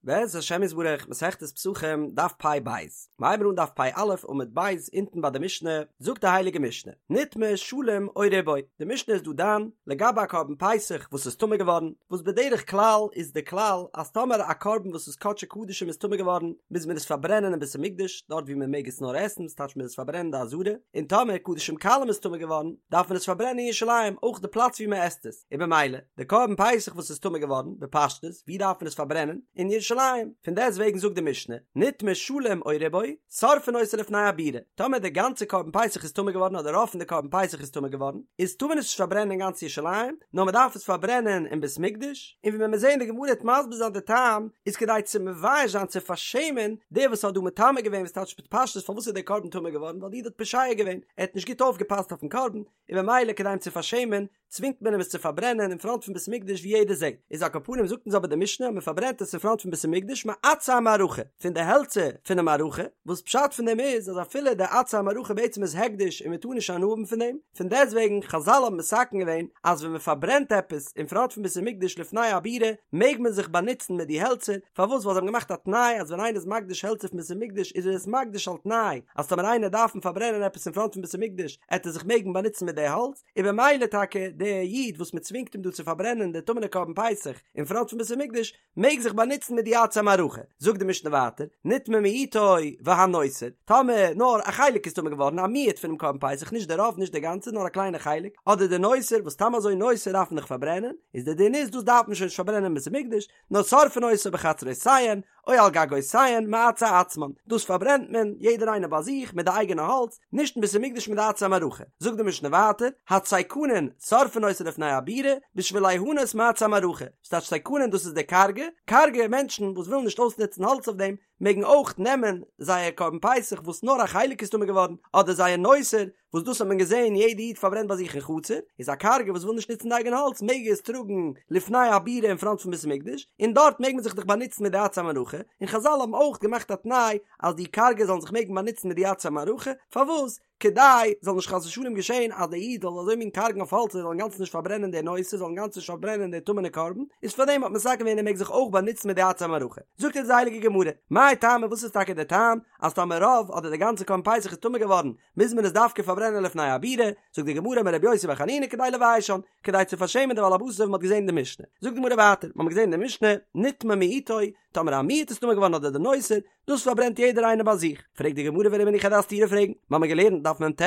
בעז השם יתברך, מסכת פסחים, דף פ ב, מ'הייבן אן דף פ א עמוד ב', אונטן ביי די משנה, זאגט די הייליגע משנה, נטמא שלם או רובו, די משנה איז דא דן לגבי א קרבן פסח וואס איז טמא געווארן, וואס בדרך כלל איז די כלל אז טאמער א קרבן וואס איז קדשי קדשים איז טמא געווארן, מוז מען עס פארברענען אין בית המקדש, דארט ווי מען מעג עס נאר עסן, ס'טייטש מען מוז עס פארברענען אין די עזרה, און טאמער קדשים קלים איז טמא געווארן, דארף מען עס פארברענען אין ירושלים, אויך די פלאץ ווי מען עסט עס. און במילא, די קרבן פסח וואס איז טמא געווארן, בפשטות, ווי דארף מען עס פארברענען? אין ירושלים. פון דעסט וועגן זאגט די משנה, נטמא שלם או רובו, שורפין אותו לפני הבירה. טאמער די גאנצע קרבן פסח איז טמא געווארן אדער רוב פון די קרבן פסח איז טמא געווארן, איז טאר מען עס נישט פארברענען אין גאנץ ירושלים, נאר מען דארף עס פארברענען אין בית מקדש, און ווי מען וועט זען די גמרא וועט מסביר זיין די טעם, איז כדי צו מבייש זיין צו פארשעמען דער וואס האט דא מטמא געווען וואס טייטש בפשטות פארוואס איז דער קרבן טמא געווארן ווייל די איד האט פושע געווען, ער האט נישט גוט אויפגעפאסט אויפן קרבן, און במילא כדי אים צו פארשעמען צווינגט מען אים עס צו פארברענען אין פראנט פון בית המקדש ווי יעדער זעט, איז על כל פנים זאגט אונז אבער די משנה אז מען פארברענט עס אין פראנט פון בית המקדש מעצי המערכה, פון די העלצער פונעם מערכה, וואס פשט פון דעם איז אז אפילו די עצי המערכה בעצם איז הקדש און מען טאר נישט הנאה האבן פון דעם, פון דעסטוועגן חזל האבן מתקן געווען אז ווען מען פארברענט עפעס אין פראנט פון בית המקדש לפני הבירה מעג מען זיך באנוצן מיט די העלצער, פארוואס ווייל זיי האבן געמאכט א תנאי אז ווען איינער איז מקדיש העלצער פון בית המקדש איז ער עס מקדיש על תנאי אז טאמער איינער דארף פארברענען עפעס אין פראנט פון בית המקדש עט ער זיך מעגן באנוצן מיט די האלץ, און במילא טאקע דער איד וואס מען צווינגט אים דא צו פארברענען די טמא'נע קרבן פסח אין פראנט פון בית המקדש, מעג זיך באנוצן מיט די עצי המערכה. זאגט די משנה ווייטער, נטמא מיעוטו והנותר, טאמער נאר א חלק איז טמא געווארן, א מיעוט פונעם קרבן פסח, נישט די רוב, נישט די גאנצע, נאר א קליינע חלק, אדער די נותר, וואס סתם אזוי נותר דארף מען דאך פארברענען, איז די דין איז דאס דארף מען שוין נישט פארברענען אין בית המקדש, נאר שורפין אותו בחצרותיהן, או על גגותיהן, מעצי עצמן, דאס פארברענט מען, יעדער איינער ביי זיך, מיט די אייגענע האלץ, נישט אין בית המקדש מיט די עצי המערכה. זאגט די משנה ווייטער, הציקנין, שורפין אותו לפני הבירה, בשביל ליהנות מעצי המערכה, ס'טייטש ציקנין דאס איז די קארגע, קארגע מענטשן וואס ווילן נישט אויסנוצן האלץ אויף דעם, מעגן אויך נעמען זייער קרבן פסח וואס נאר א חלק איז טמא געווארן, אדער זייער נותר, וואס דאס האט מען געזען יעדע איד פארברענט ביי זיך אין חצר, איז א קארגע וואס וויל נישט נוצן די אייגענע האלץ מעג עס טראגן לפני הבירה אין פראנט פון בית המקדש, און דארט מעג מען זיך דאך באנוצן מיט די עצי המערכה, און חזל האבן אויך געמאכט א תנאי אז די קארגע זאלן זיך מעגן באנוצן מיט די עצי המערכה, פארוואס? כדי זאל נישט חס ושלום געשען אז דער איד זאל אזוי מין קארגן אויף האלץ ער זאל אינגאנצן נישט פארברענען די נותר זאל אינגאנצן נישט פארברענען די טמא'נע קרבן, איז פארדעם האט מען מתקן געווען ער מעג זיך אויך באנוצן מיט די עצי המערכה. זאגט אונז די הייליגע גמרא, מאי טעמא וואס איז טאקע דער טעם אז טאמער רוב אדער די גאנצע קרבן פסח איז טמא געווארן מוז מען עס דווקא פארברענען לפני הבירה, זאגט די גמרא אמר רבי יוסי בר חנינא כדי לביישן, כדי צו פארשעמען די בעל הבית אזוי ווי מען האט געזען אין די משנה. זאגט די גמרא ווייטער, מיר האבן געזען אין די משנה, נטמא מיעוטו, טאמער א מיעוט איז טמא געווארן אדער די נותר, דאס פארברענט יעדער איינער ביי זיך. פרעגט די גמרא ורמינהו איך וועל דיר א סתירה פרעגן, מיר האבן געלערנט דף מ"ט,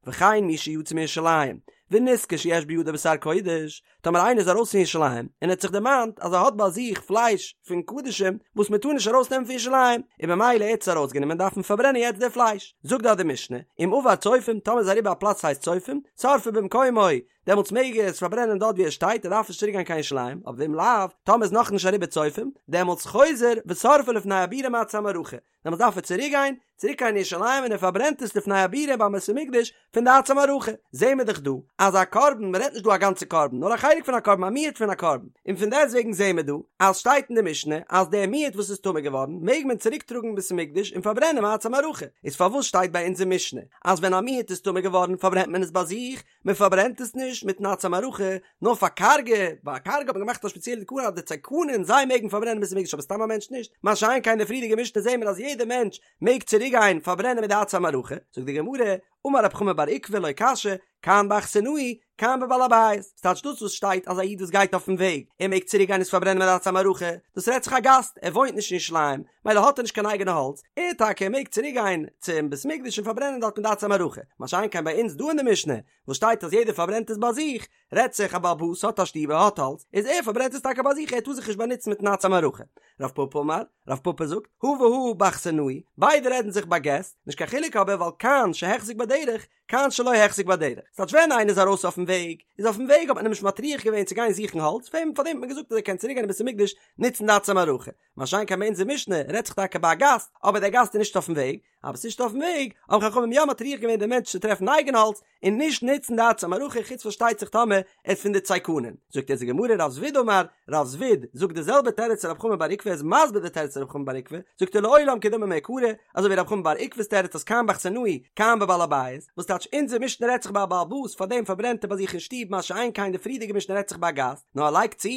וכן מי שיצא מירושלים, ונזכר שיש בידו בשר קודש, טאמער איינער איז ארויס פון ירושלים און ער האט זיך דערמאנט אז ער האט ביי זיך פלייש פון קדשים וואס מען טאר נישט ארויס נעמען פון ירושלים, און במילא ער האט עס ארויס גענומען דארף מען פארברענען יעצט די פלייש, זאגט דארט די משנה, אם עבר צופים, טאמער איז אריבער א פלאץ וואס הייסט צופים, שורפו במקומו, דעמאלטס מעג ער עס פארברענען דארט ווי ער שטייט, ער דארף נישט צוריק גיין קיין ירושלים, אבער ואם לאו, טאמער איז נאכנישט אריבער צופים, דעמאלטס חוזר ושורפו לפני הבירה מעצי המערכה, דעמאלטס דארף ער צוריק גיין, צוריק קיין ירושלים און ער פארברענט עס לפני הבירה ביים בית המקדש פון די עצי המערכה, זעהן מיר דאך דא אז א קרבן, מען רעדט נישט דא א גאנצע קרבן, נאר א חלק פון א קרבן, א מיעוט פון א קרבן, און פון דעסטוועגן זעהן מיר דא אז שטייט אין די משנה אז דער מיעוט וואס איז טמא געווארן מעג מען צוריק טראגן אין בית המקדש און פארברענען מעצי המערכה, איז פארוואס שטייט ביי אונזער משנה אז ווען א מיעוט איז טמא געווארן פארברענט מען עס ביי זיך, מען פארברענט עס נישט מיטן עצי המערכה, נאר פאר קארגע, ביי קארגע האט מען געמאכט א ספעציעלע תקנה אז די ציקנין זיי מעגן פארברענען בית המקדש אבער סתם א מענטש נישט, מה שאין כן די פריערדיגע משנה זעהן מיר אז יעדער מענטש מעג צוריק גיין פארברענען מיט די עצי המערכה, זאגט די גמרא, אמר רב חמא בר עוקבא לא קשיא, כאן באכסנאי, כאן בבעל הבית, ס'טייטש דאס וואס שטייט אז א איד וואס גייט אויפן וועג, ער מעג צוריק גיין עס פארברענען מיט די עצי המערכה, דאס רעדט זיך א גאסט, ער וואוינט נישט אין ירושלים, מילא האט ער נישט קיין אייגענע האלץ, ער טאקע מעג צוריק גיין צום בית מקדש און פארברענען דארט מיט די עצי המערכה, מה שאין כן ביי אונז דא אין די משנה, וואס שטייט אז יעדער פארברענט עס ביי זיך, רעדט זיך א בעל הבית האט א שטוב ער האט האלץ, איז ער פארברענט עס טאקע ביי זיך ער טאר זיך נישט באנוצן מיטן עצי המערכה. רב פפא אמר, רב פפא זאגט, הא והא באכסנאי, ביידע רעדן זיך ביי געסט, נישט קיין חילוק אבער ווייל כאן שהחזיק בדרך, כאן שלא החזיק בדרך, ס'טייטש ווען איינער איז ארויס אויפן וועג, איז אויפן וועג האט מען אים נישט מטריח געווען צו גיין זוכן האלץ, פאר דעם האט מען געזאגט אז ער קען צוריק גיין אין בית המקדש נוצן די עצי המערכה, מה שאין כן ביי אונזער משנה רעדט זיך טאקע ביי א גאסט, אבער דער גאסט איז נישט אויפן וועג, אבער ס'נישט אויפן וועג, האבן חכמים יא מטריח געווען דעם מענטש צו טרעפן אייגן האלץ, און נישט נוצן די עצי המערכה, חוץ פארשטייט זיך טאמער ער איז פון די צייקנים. זאגט אונז די גמרא רב זביד אמר, רב זביד זאגט די זעלבע תירוץ צו רב חמא בר עוקבא, ער איז מסביר די תירוץ צו רב חמא בר עוקבא, זאגט ער לעולם כדאמר מעיקרא, אזוי ווי רב חמא בר עוקבא'ס תירוץ אז כאן באכסנאי כאן בבעל הבית, וואס טייטש אונזער משנה רעדט זיך ביי א בעל הבית פארדעם פארברענט ער ביי זיך אין שטוב מה שאין כן די פריערדיגע משנה רעדט זיך ביי א גאסט, נאר ער לייגט צו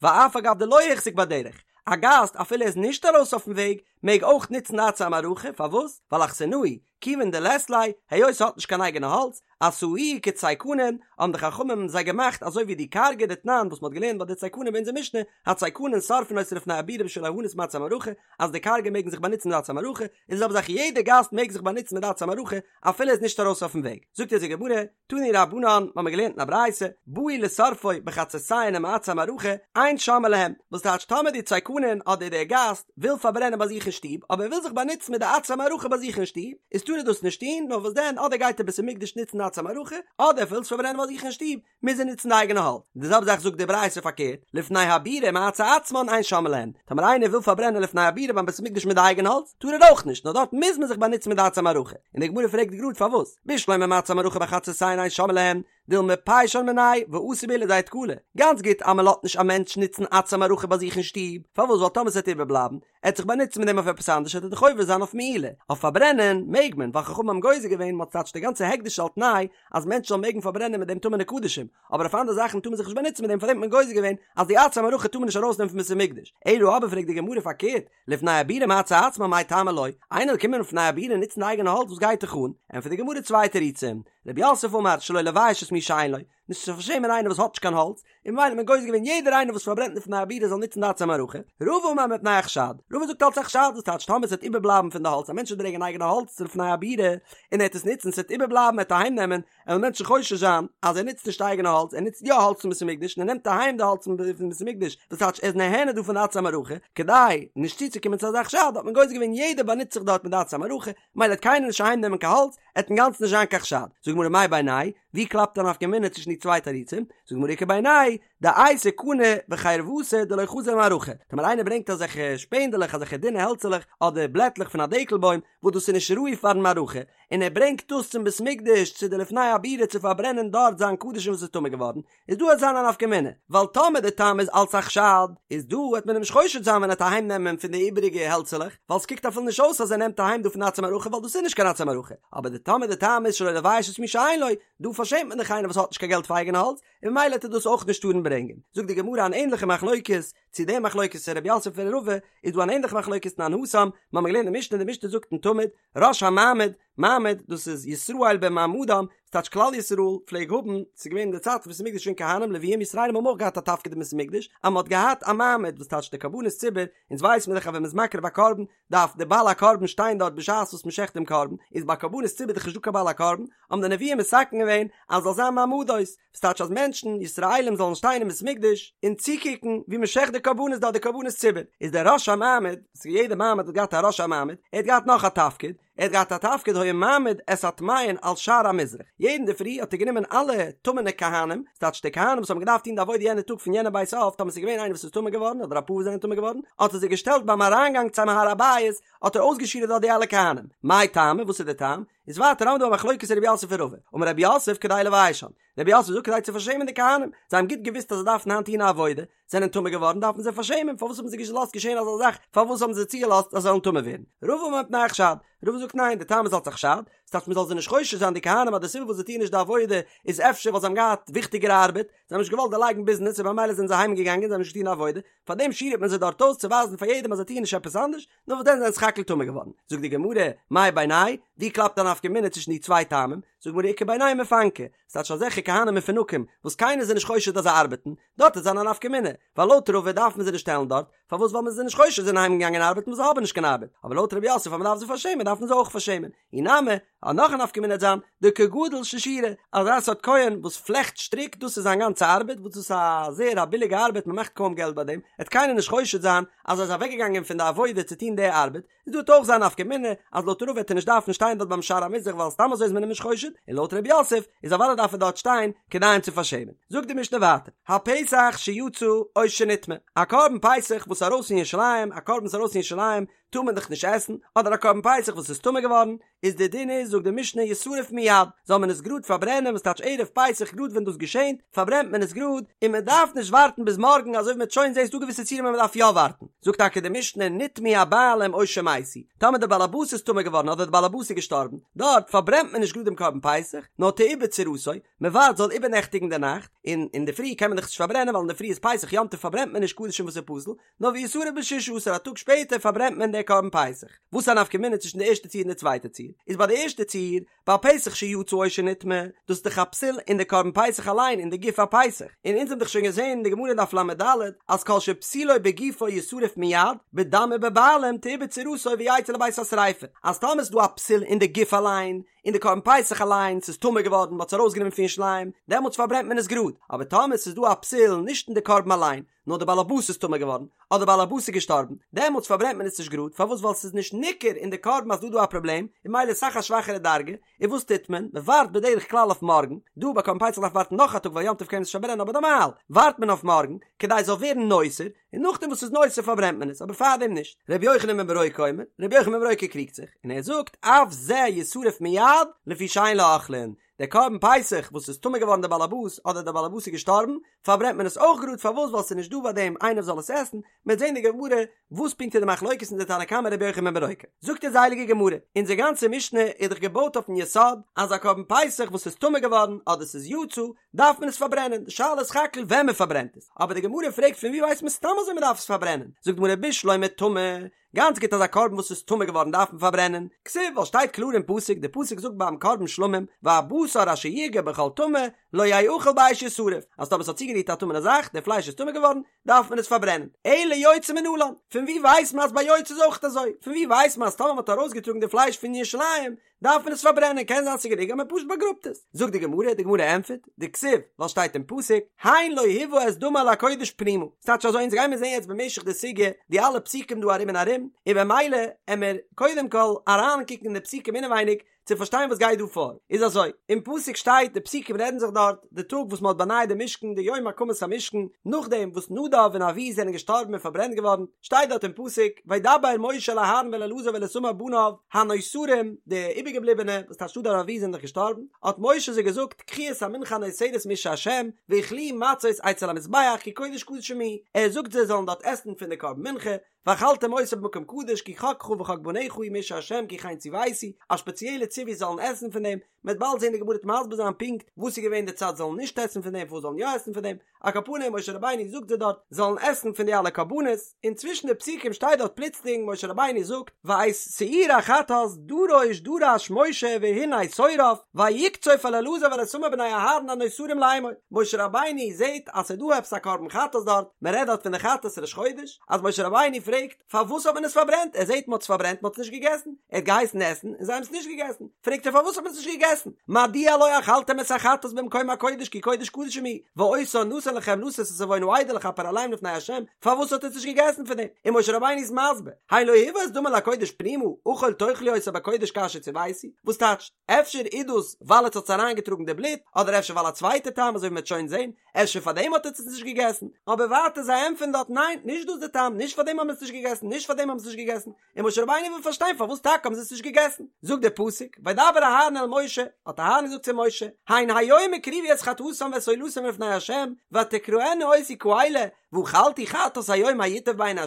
ואף על גב דלא החזיק בדרך, א גאסט אפילו ער איז נישט ארויס אויפן וועג מעג אויך נוצן די עצי המערכה, פארוואס? ווייל אכסנאי, כיוון דלית ליה, היות ער האט נישט קיין אייגענע האלץ, עשאוהו כצייקנין, האבן די חכמים זיי געמאכט אזוי ווי די קארגע דתנן וואס מ'האט געלערנט ביי די צייקנים ביי אונזער משנה, הצייקנין שורפין אותו לפני הבירה בשביל ליהנות מעצי המערכה, אז די קארגע מעגן זיך באנוצן מיט די עצי המערכה, איז די זעלבע זאך יעדע גאסט מעג זיך באנוצן מיט די עצי המערכה אפילו ער איז נישט ארויס אויפן וועג. זאגט אונז די גמרא, תנו רבנן, מ'האמיר געלערנט אין א ברייתא, באו לשורפו בחצרותיהן ומעצי המערכה, אין שומעין להם, וואס טייטש טאמער די צייקנין אדער דער גאסט וויל פארברענען ביי זיך אין שטוב, אבער ער וויל זיך באנוצן מיט די עצי המערכה ביי זיך אין שטוב, איז טאר ער דאס נישט טון, נאר וואס דען אדער גייט ער בית המקדש נוצן די עצי המערכה, אדער ער וויל עס פארברענען ביי זיך אין שטוב, מוז ער נוצן די אייגענע האלץ. די זעלבע זאך זאגט די ברייתא פארקערט, לפני הבירה מעצי עצמן אין שומעין להן, טאמער איינער וויל פארברענען לפני הבירה ביים בית המקדש מיט די אייגענע האלץ, טאר ער אויך נישט, נאר דארט מוז מען זיך באנוצן מיט די עצי המערכה. און די גמרא פרעגט גראד פארוואס, בשלמא מעצי המערכה בחצרותיהן אין שומעין להן, דילמא פיישן מינייהו ואתי בהו לידי תקלה, גאנץ גוט אז מען לאזט נישט א מענטש נוצן עצי המערכה ביי זיך אין שטוב, פארוואס ווייל טאמער ס'וועט איבערבלייבן, ער וועט זיך באנוצן מיט דעם אויף עפעס אנדערש וועט ער דאך עובר זיין אויף מעילה, אויף פארברענען מעג מען ווייל חכמים האבן גוזר געווען מ'האט ס'טייטש די גאנצע הקדש על תנאי אז מענטשן זאלן מעגן פארברענען מיט דעם טמא'נע קדשים, אבער אויף אנדערע זאכן טאר מען זיך נישט באנוצן מיט דעם פארדעם האט מען גוזר געווען אז די עצי המערכה טאר מען נישט ארויסנעמען פון בית המקדש, אלא אבער פרעגט די גמרא פארקערט, לפני הבירה מעצי עצמן מאי טעמא לא, איינער זאל קומען לפני הבירה נוצן די אייגענע האלץ וואס גייט דיך אן, ענטפערט די גמרא צוויי תירוצים, רב יוסף אמר שלא לבייש את מי שאין לו, נישט צו פארשעמען איינער וואס האט נישט קיין האלץ, און ממילא האט מען גוזר געווען יעדער איינער וואס פארברענט לפני הבירה זאל נוצן די עצי המערכה, רבא אמר מפני החשד, רבא זאגט אלץ א חשד, וואס טייטש טאמער עס וועט איבערבלייבן פון די האלץ, א מענטש וועט ברענגען אייגענע האלץ צו לפני הבירה, און ער וועט עס נוצן, עס וועט איבערבלייבן, ער וועט אהיים נעמען, וועלן מענטשן חושש זיין אז ער נוצט נישט אייגענע האלץ, ער נוצט יא האלץ פון בית המקדש, און ער נעמט אהיים די האלץ פון בית המקדש, וואס טייטש ער איז נהנה דא פון די עצי המערכה, כדי נישט צוצוקומען צו אזא חשד האט מען גוזר געווען יעדער באנוצט זיך דארט מיט די עצי המערכה, ממילא וועט קיינער נישט אהיים נעמען קיין האלץ, עט אינגאנצן נישט זיין קיין חשד. זאגט די גמרא מאי בינייהו ווי קלאפט א נפקא מינה צווישן די צוויי תירוצים? זאגט די גמרא איכא בינייהו דאייתי קני וחרבתא דלא חזי למערכה, טאמער איינער ברענגט אזעלכע שפענדעלעך אזעלכע דינע העלצעלעך אדער בלעטלעך פון א דקל בוים וואס דאס איז נישט ראוי פארן מערכה, און ער ברענגט דאס צום בית מקדש צו די לפני הבירה צו פארברענען דארט זיין קדשים וואס איז טמא געווארן, איז דא עט זיין א נפקא מינה, ווייל טאמער די טעם איז אלץ א חשד, איז דא וועט מען אים נישט חושד זיין ווען ער וועט אהיים נעמען פון די איבעריגע העלצעלעך, ווייל ס'קוקט אפילו נישט אויס אז ער נעמט אהיים דא פון עצי מערכה ווייל דאס איז נישט קיין עצי מערכה, אבער די טאמער די טעם איז שלא לבייש את מי שאין לו, דא פארשעמט מען דאך איינער וואס האט נישט קיין געלט פאר אייגענע האלץ, און ממילא וועט ער דאס אויך נישט טארן ברענגען. זאגט די גמרא אן ענליכע מחלוקת צו די מחלוקת פון רב יוסף און רבא, איז דא אן ענליכע מחלוקת תנן התם, מ'האמיר געלערנט אין משנה, די משנה זאגט אין תמיד, ראש המעמד, מעמד, דאס איז ישראל במעמדם, ס'טייטש כלל ישראל פלעג האבן, ס'איז געווען אין די צייט פון בית המקדש שוין כהנים, לוויים, ישראלים האבן אויך געהאט א תפקיד אין בית המקדש, אז מ'האט געהאט א מעמד, וואס טייטש די קרבנות ציבור, אונז ווייס מיר דאך אז ווען מ'איז מקריב א קרבן, דארף דער בעל הקרבן שטיין דארט בשעת וואס מ'שעכט דעם קרבן, איז ביי קרבנות ציבור דאך נישטא קיין בעל הקרבן, האבן די נביאים מתקן געווען אז זאל זיין מעמדות, וואס טייטש אז מענטשן, ישראלים, זאלן שטיין אין בית המקדש און צוקוקן ווי מ'שעכט די קרבנות דארט די קרבנות ציבור, איז דער ראש המעמד, וואס יעדע מעמד האט געהאט א ראש המעמד, ער האט געהאט נאך א תפקיד, ער האט געהאט א תפקיד היה מעמיד את הטמאין על שער המזרח, יעדן אינדערפרי האט ער גענומען אלע טמא'נע כהנים, ס'טייטש די כהנים וואס האבן געדארפט טון די עבודה יענע טאג פון יענע בית אב, טאמער ס'איז געווען איינער וואס איז טמא געווארן אדער אפאר וואס זענען טמא געווארן, האט ער זיי געשטעלט ביים אריינגאנג צום הר הבית, האט ער אויסגעשירעט דארט די אלע כהנים. מאי טעמא, וואס איז די טעם? איז ווייטער האבן מיר דא א מחלוקת רב יוסף און רבא, אמר רב יוסף כדי לביישן, רב יוסף זאגט כדי צו פארשעמען די כהנים, זיי האבן גוט געוואוסט אז זיי דארפן היינט טון א עבודה, זענען טמא געווארן דארף מען זיי פארשעמען, פארוואס האבן זיי געלאזט געשען אזא זאך, פארוואס האבן זיי צוגעלאזט אז זיי זאלן טמא ווערן? רבא אמר מפני החשד, רבא זאגט ניין, די טעם איז אלץ א חשד, ס'טייטש מען זאל זיי נישט חושד זיין די כהנים אז די סיבה וואס זיי טוען נישט די עבודה איז אפשר ווייל זיי האבן געהאט וויכטיגערע ארבעט, זיי האבן נישט געוואלט דערלייגן ביזנעס און במילא זענען זיי אהיים געגאנגען זיי האבן נישט געטון די עבודה, פארדעם שירעט מען זיי דארט אויס צו ווייזן פאר יעדעם אז זיי טוען נישט עפעס אנדערש, נאר וואס דען זענען סך הכל טמא געווארן. זאגט די גמרא, מאי בינייהו, ווי קלאפט א נפקא מינה צווישן די צוויי טעמים? זאגט די גמרא איכא בינייהו מפנקי, ס'טייטש אזעלכע כהנים מפונקים וואס קיינער איז זיי נישט חושד אז זיי ארבעטן, דארט וועט זיין א נפקא מינה, ווייל לויט רבא דארף מען זיי נישט שטעלן דארט, פארוואס ווייל מען איז זיי נישט חושד זיי זענען אהיים געגאנגען ארבעטן וואס זיי האבן נישט קיין ארבעט, אבער לויט רב יוסף אז מען דארף זיי פארשעמען דארף מען זיי אויך פארשעמען, אי נמי, אז נאך א נפקא מינה וועט זיין, דכגדל ששורי, אזא סארט כהן וואס פלעכט שטריק דאס איז זיין גאנצע ארבעט, וואס דאס איז א זייער א ביליגע ארבעט מען מאכט קוים געלט ביי דעם, וועט קיינער נישט חושד זיין אז ער איז אוועקגעגאנגען פון די עבודה צו טון די ארבעט, איז דא וועט אויך זיין נפקא מינה אז לויט רבא וועט ער נישט דארפן שטיין דארט ביים שער המזרח ווייל סתם אזוי איז מען אים נישט חושד, און לויט רב יוסף איז אוודאי דארף ער דארט שטיין כדי אים צו פארשעמען. זאגט די משנה ווייטער, הפסח שיצא או שנטמא, א קרבן פסח וואס איז ארויס פון ירושלים, א קרבן וואס איז ארויס פון ירושלים, טאר מען דאך נישט עסן, אדער א קרבן פסח וואס איז טמא געווארן, איז די דין איז זאגט די משנה ישרף מיד, זאל מען עס גראד פארברענען וואס טייטש ערב פסח גראד ווען דאס געשענט פארברענט מען עס גראד און מען דארף נישט ווארטן ביז מארגן אזוי ווי מען וועט שוין זען ס'דא געוויסע ציורים ווען מען דארף יא ווארטן, זאגט טאקע די משנה נטמאו הבעלים או שמתו, טאמער די בעל הבית איז טמא געווארן אדער די בעל הבית איז געשטארבן, דארט פארברענט מען נישט גראד דעם קרבן פסח, נאר תעובר צורתו, מען ווארט זאל איבערנעכטיגן די נאכט, און אינדערפרי קען מען דאך נישט פארברענען ווייל אינדערפרי איז פסח יום טוב פארברענט מען נישט קדשים וואס איז פסול, נאר וישרף בששה עשר א טאג שפעטער פארברענט מען דער קרבן פסח. וואס איז א נפקא מינה צווישן די ערשטע ציור און די צווייטע ציור? איז ביי די ערשטע ציור, ביי פסח שיצא או שנטמא, דאס איז דאך א פסול אין די קרבן פסח אליין אין די גוף הפסח, און אונז האבן דאך שוין געזען אין די גמרא דף לד אז כל שפסולו בגופו ישרף מיד, בדם ובבעלים תעובר צורתו ויצא לבית השריפה, אז טאמער איז דא א פסול אין די גוף אליין, אין די קרבן פסח אליין, ס'איז טמא געווארן, מ'האט עס ארויסגענומען פון ירושלים, דעמאלטס פארברענט מען עס גראד, אבער טאמער ס'איז דא א פסול נישט אין די קרבן אליין, נאר די באלעבאס איז טמא געווארן, אדער באלעבאס איז געשטארבן, דעמאלטס פארברענט מען עס נישט גראד, פארוואס ווייל ס'איז נישט ניכר אין די קרבן אז דא דא א פראבלעם, און ממילא איז אסאך א שוואכערע דרגה, און וואס טוט מען? מען ווארט בדרך כלל אויף מארגן, דא ביי קרבן פסח דארף מען ווארטן נאך א טאג ווייל יום טוב קען מען עס נישט פארברענען אבער נארמאל ווארט מען אויף מארגן, כדי עס זאל ווערן נותר, און נאכדעם וואס ס'איז נותר פארברענט מען עס, אבער פארדעם נישט. ר' יוחנן בן ברוקה אומר, ר' יוחנן בן ברוקה קריגט זיך, און ער זאגט, אף זה ישרף מיד, לפי שאין לו אוכלין, דער קרבן פסח וואס איז טמא געווארן דער באלעבאס אדער דער באלעבאס איז געשטארבן, פארברענט מען עס אויך גראד, פארוואס ווייל ס'איז נישט דא ביי דעם איינער וואס זאל עס עסן, מ'וועט זען די גמרא וואס פונקט איז די מחלוקת אין די תנא קמא רבי יוחנן בן ברוקה. זאגט אונז די הייליגע גמרא, אונזער גאנצע משנה איז דאך געבויט אויפן יסוד אז א קרבן פסח וואס איז טמא געווארן אדער ס'איז יצא דארף מען עס פארברענען, די שאלה איז סך הכל ווען מ'פארברענט עס, אבער די גמרא פרעגט פון ווי ווייסט מען סתם אזוי מ'דארף עס פארברענען, זאגט די גמרא בשלמא טמא, גאנץ גוט אז א קרבן וואס איז טמא געווארן דארף מען פארברענען, כתיב ווייל שטייט קלאר אין פסוק, די פסוק זאגט ביים קרבן שלמים, והבשר אשר יגע בכל טמא לא יאכל באש ישרף, אז טאמער ס'האט צוגערירט א טמא'נע זאך, די פלייש איז טמא געווארן, דארף מען עס פארברענען. אלא יוצא מנלן, פון ווי ווייסט מען אז ביי יוצא איז אויך אזוי? פון ווי ווייסט מען אז טאמער מ'האט ארויסגעטראגן די פלייש פון ירושלים, דארף מען עס פארברענען, קען זיין ס'איז גענוג אז מען פשוט באגראבט עס. זאגט די גמרא, די גמרא ענטפערט, דכתיב, ווייל שטייט אין פסוק, הן לא הובא את דמה אל הקודש פנימה. ס'טייטש אזוי, אונז גיימיר זען יעצט במשך די סוגיא די אלע פסוקים דא ארום און ארום, און במילא עמיר קודם כל אריינקוקן אין די פסוקים אינעווייניג, צו פארשטיין וואס גייט דא פאר, איז אזוי, אין פסוק שטייט, די פסוקים רעדן זיך דארט, די טאג וואס מען האט באנייט די משכן, די יום הקמת המשכן, נאכדעם וואס נדב און אביהוא זענען געשטארבן און פארברענט געווארן, שטייט דארט אין פסוק, וידבר משה אל אהרן ואל אלעזר ואל איתמר בניו, הנותרים, די איבערגעבליבענע, וואס טייטש נדב און אביהוא זענען דאך געשטארבן, האט משה זיי געזאגט, קחו את המנחה הנותרת מאשי השם, ואכלוה מצות אצל המזבח, כי קודש קדשים היא, ער זאגט זיי זאלן דארט עסן פון די קרבן מנחה, ואכלתם אותה במקום קדוש כי חקך וחק בניך הוא מאשי השם כי כן צויתי, א שפעציעלע ציווי זאלן עסן פון דעם, מ'וועט באלד זען די גמרא וועט מסביר זיין פונקט וואס איז געווען די צד זאלן נישט עסן פון דעם פארוואס זאלן יא עסן פון דעם, על כל פנים משה רבינו זאגט זיי דארט זאלן עסן פון די אלע קרבנות, און צווישן די פסוקים שטייט דארט פלוצלינג משה רבינו זאגט ואת שעיר החטאת דרוש דרש משה והנה שורף ויקצוף על אלעזר ועל איתמר בני אהרן הנותרים לאמור, משה רבינו זעט אז ס'איז דא עפעס א קרבן חטאת דארט, מ'רעדט דארט פון די חטאת ראש חודש, אז משה רבינו פרעגט פארוואס האט מען עס פארברענט, ער זעט מען האט עס פארברענט מען האט עס נישט געגעסן, ער האט געהייסן עסן און זיי האבן עס נישט געגעסן, פרעגט ער פארוואס האט מען עס נישט געגעסן, מדוע לא אכלתם את החטאת במקום הקודש כי קודש קדשים היא, ואותה נתן לכם לשאת את עון העדה לכפר עליהם לפני ה', פארוואס האט עטס נישט געגעסן פון דעם, און משה רבינו איז מסביר, הן לא הובא את דמה אל הקודש פנימה, אכול תאכלו אותו בקודש כאשר צויתי, וואס טייטשט, אפשר איז דאס ווייל עטס האטס אריינגעטראגן די בלוט, אדער אפשר ווייל א צווייטע טעם אזוי ווי מען וועט שוין זען, אפשר פאר דעם האט עטס עס נישט געגעסן? אבער ווייטער זיי ענטפערן דארט ניין, נישט דאס די טעם, נישט פאר דעם האבן מיר עס נישט געגעסן, נישט פאר דעם האבן מיר עס נישט געגעסן, און משה רבינו וויל פארשטיין פארוואס טאקע האבן זיי עס נישט געגעסן, זאגט דער פסוק, וידבר אהרן אל משה, האט אהרן געזאגט צו משה, הן היום הקריבו את חטאתם ואת עולתם לפני ה', ותקראנה אותי כאלה, ואכלתי חטאת היום הייטב בעיני ה',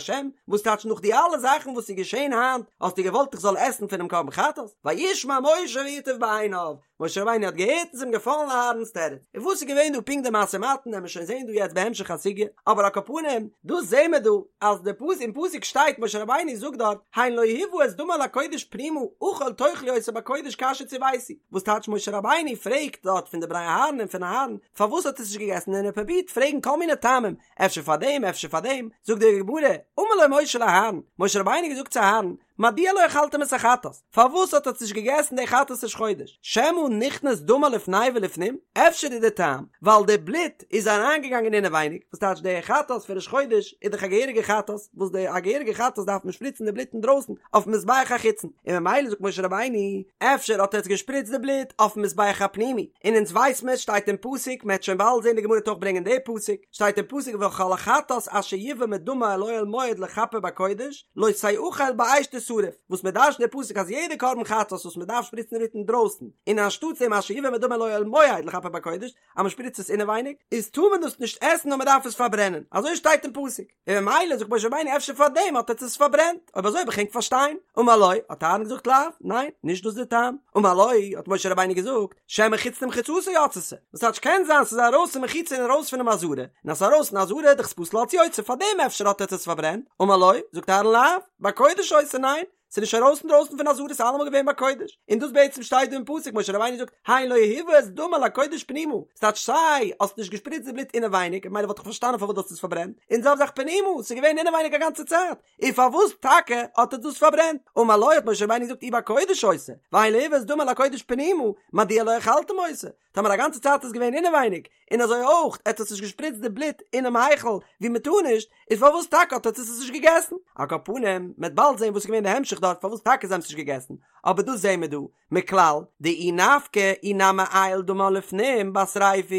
וואס טייטש נאך די אלע זאכן וואס איז געשען היינט, האסטו געוואלט איך זאל עסן פונעם קרבן חטאת? וישמע משה וייטב בעיניו, משה רבינו האט געהערט און ס'איז אים געפאלן אהרן'ס תירוץ. און וואס איז געווען דא פונקט די משא ומתן וועלן מיר שוין זעהן דא יעצט בהמשך הסוגיא, אבער על כל פנים, דאס זעהן מיר דא אז די פסוק אין פסוק שטייט משה רבינו זאגט דארט הן לא הובא את דמה אל הקודש פנימה אכול תאכלו אותו בקודש כאשר צויתי, וואס טייטש משה רבינו פרעגט דארט פון די בני אהרן און פון אהרן פארוואס האט ער עס נישט געגעסן און ער פרובירט פרעגן כל מיני טעמים אפשר פאר דעם אפשר פאר דעם, זאגט די גמרא אמר לו משה לאהרן, משה רבינו האט געזאגט צו אהרן, מדוע לא אכלתם את החטאת? פארוואס האט עטץ נישט געגעסן די חטאת ראש חודש? שמא נכנס דמה לפני ולפנים? אפשר איז די טעם ווייל די בלוט איז אריינגעגאנגען אינעווייניג, וואס טייטש די חטאת פון ראש חודש איז דאך א געהעריגע חטאת, וואס די א געהעריגע חטאת דארף מען שפריצן די בלוט אינדרויסן אויפן מזבח החיצון, און ממילא זאגט משה רבינו, אפשר האט עטץ געשפריצט די בלוט אויפן מזבח הפנימי, און אונז ווייס מען שטייט אין פסוק, מען וועט שוין באלד זען די גמרא וועט אויך ברענגען די פסוק, שטייט אין פסוק וכל החטאת אשר יובא מדמה אל אוהל מועד לכפר בקודש לא תאכל באש תשרף, וואס מען דרש'נט די פסוק אז יעדע קרבן חטאת וואס מען דארף שפריצן די בלוט אינדרויסן, און אנשטאטס דעם אשר יובא מדמה אל אוהל מועד לכפר בקודש, אז מען שפריצט עס אינעווייניג, איז טאר מען דאס נישט עסן נאר מען דארף עס פארברענען, אזוי שטייט אין פסוק, און ממילא זאגט משה רבינו אפשר פאר דעם האט עטס עס פארברענט, אויב אזוי וועל איך ענק פארשטיין, אמר לו, האט אהרן געזאגט לאו, ניין, נישט דאס די טעם, אמר לו, האט משה רבינו געזאגט, שמא חוץ למחיצתה יצתה, וואס טייטש קען זיין ס'איז ארויס פון מחיצה און ארויס פונעם עזרה, און אז ס'איז ארויס אין עזרה איז דאך עס פסול אלץ יוצא, פאר דעם אפשר האט עטס עס פארברענט, אמר לו, זאגט אהרן לאו, בקודש היתה, ניין, ס'איז נישט ארויס אינדרויסן פון עזרה ס'איז אלעמאל געווען בקודש, און דאס בעצם שטייט דא אין פסוק משה רבינו זאגט הן לא הובא את דמה אל הקודש פנימה, ס'טייטש סיי האסט נישט געשפריצט די בלוט אינעווייניג ממילא וואלט איך פארשטאנען פארוואס דו האסט עס פארברענט, און זעלבע זאך פנימה ס'איז געווען אינעווייניג א גאנצע צייט, און פארוואס טאקע האט ער דאס פארברענט? אמר לו האט משה רבינו געזאגט אי בקודש היתה, והן לא הובא את דמה אל הקודש פנימה, מדוע לא אכלתם אותה? טאמער א גאנצע צייט איז געווען אינעווייניג, און אזוי אויך עטס האטס נישט געשפריצט די בלוט אינעם היכל ווי מען טאר נישט, איז פארוואס טאקע האט עטס עס נישט געגעסן? על כל פנים, מען וועט באלד זען וואס איז געווען די המשך דארט פארוואס טאקע זיי האבן עס נישט געגעסן, אבער דאס זעען מיר דא, מכלל, דאי נפקא אי נמי עייל דמה לפנים בשריפה,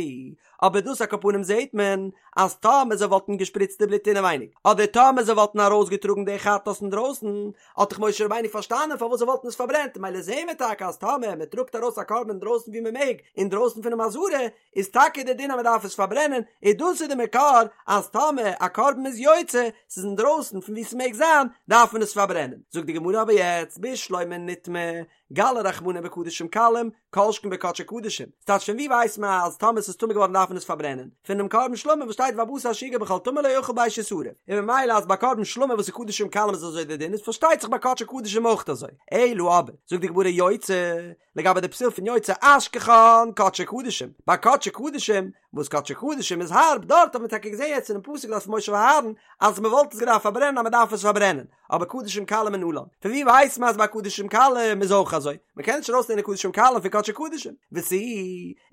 אבער דאס על כל פנים זעט מען אז טאמער זיי וואלטן געשפריצט די בלוט אינעווייניג, אדער טאמער זיי וואלטן ארויסגעטראגן די חטאת אינדרויסן, האט דאך משה רבינו פארשטאנען פארוואס זיי וואלטן עס פארברענט, מילא זעהן מיר טאקע אז טאמער מען טראגט ארויס א קרבן אינדרויסן ווי מען מעג, אינדרויסן פונעם עזרה, איז טאקע די דין אז מען דארף עס פארברענען, און דאס איז די מקור אז טאמער א קרבן איז יוצא, ס'איז אינדרויסן פון ווי ס'מעג זיין, דארף מען עס פארברענען. זאגט די גמרא אבער יעצט בשלמא נטמא, גלי רחמנא בקדשים קלים, כל שכן בקדשי קדשים. ס'טייטש פון ווי ווייסט מען אז טאמער ס'איז טמא געווארן דארף מען עס פארברענען? פונעם קרבן שלמים וואס שטייט והבשר אשר יגע בכל טמא לא יאכל באש ישרף. און ממילא אז ביי קרבן שלמים וואס איז קדשים קלים איז אזוי די דין איז פארשטייט זיך ביי קדשי קדשים אויך אזוי. אלא אבער, זאגט די גמרא יוצא, לגבי די פסול פון יוצא אשכחן קדשי קדשים, ביי קדשי קדשים, וואס קדשי קדשים איז הארב, דארט האט מען טאקע געזען יעצט אינעם פסוק דארט פון משה ואהרן אז מען וואלט עס געדארפט פארברענען אז מען דארף עס פארברענען, אבער קדשים קלים מנלן, פון ווי ווייסט מען אז ביי קדשים קלים איז אויך אזוי? מען קען נישט ארויסלערנען קדשים קלים פון קדשי קדשים, ותו,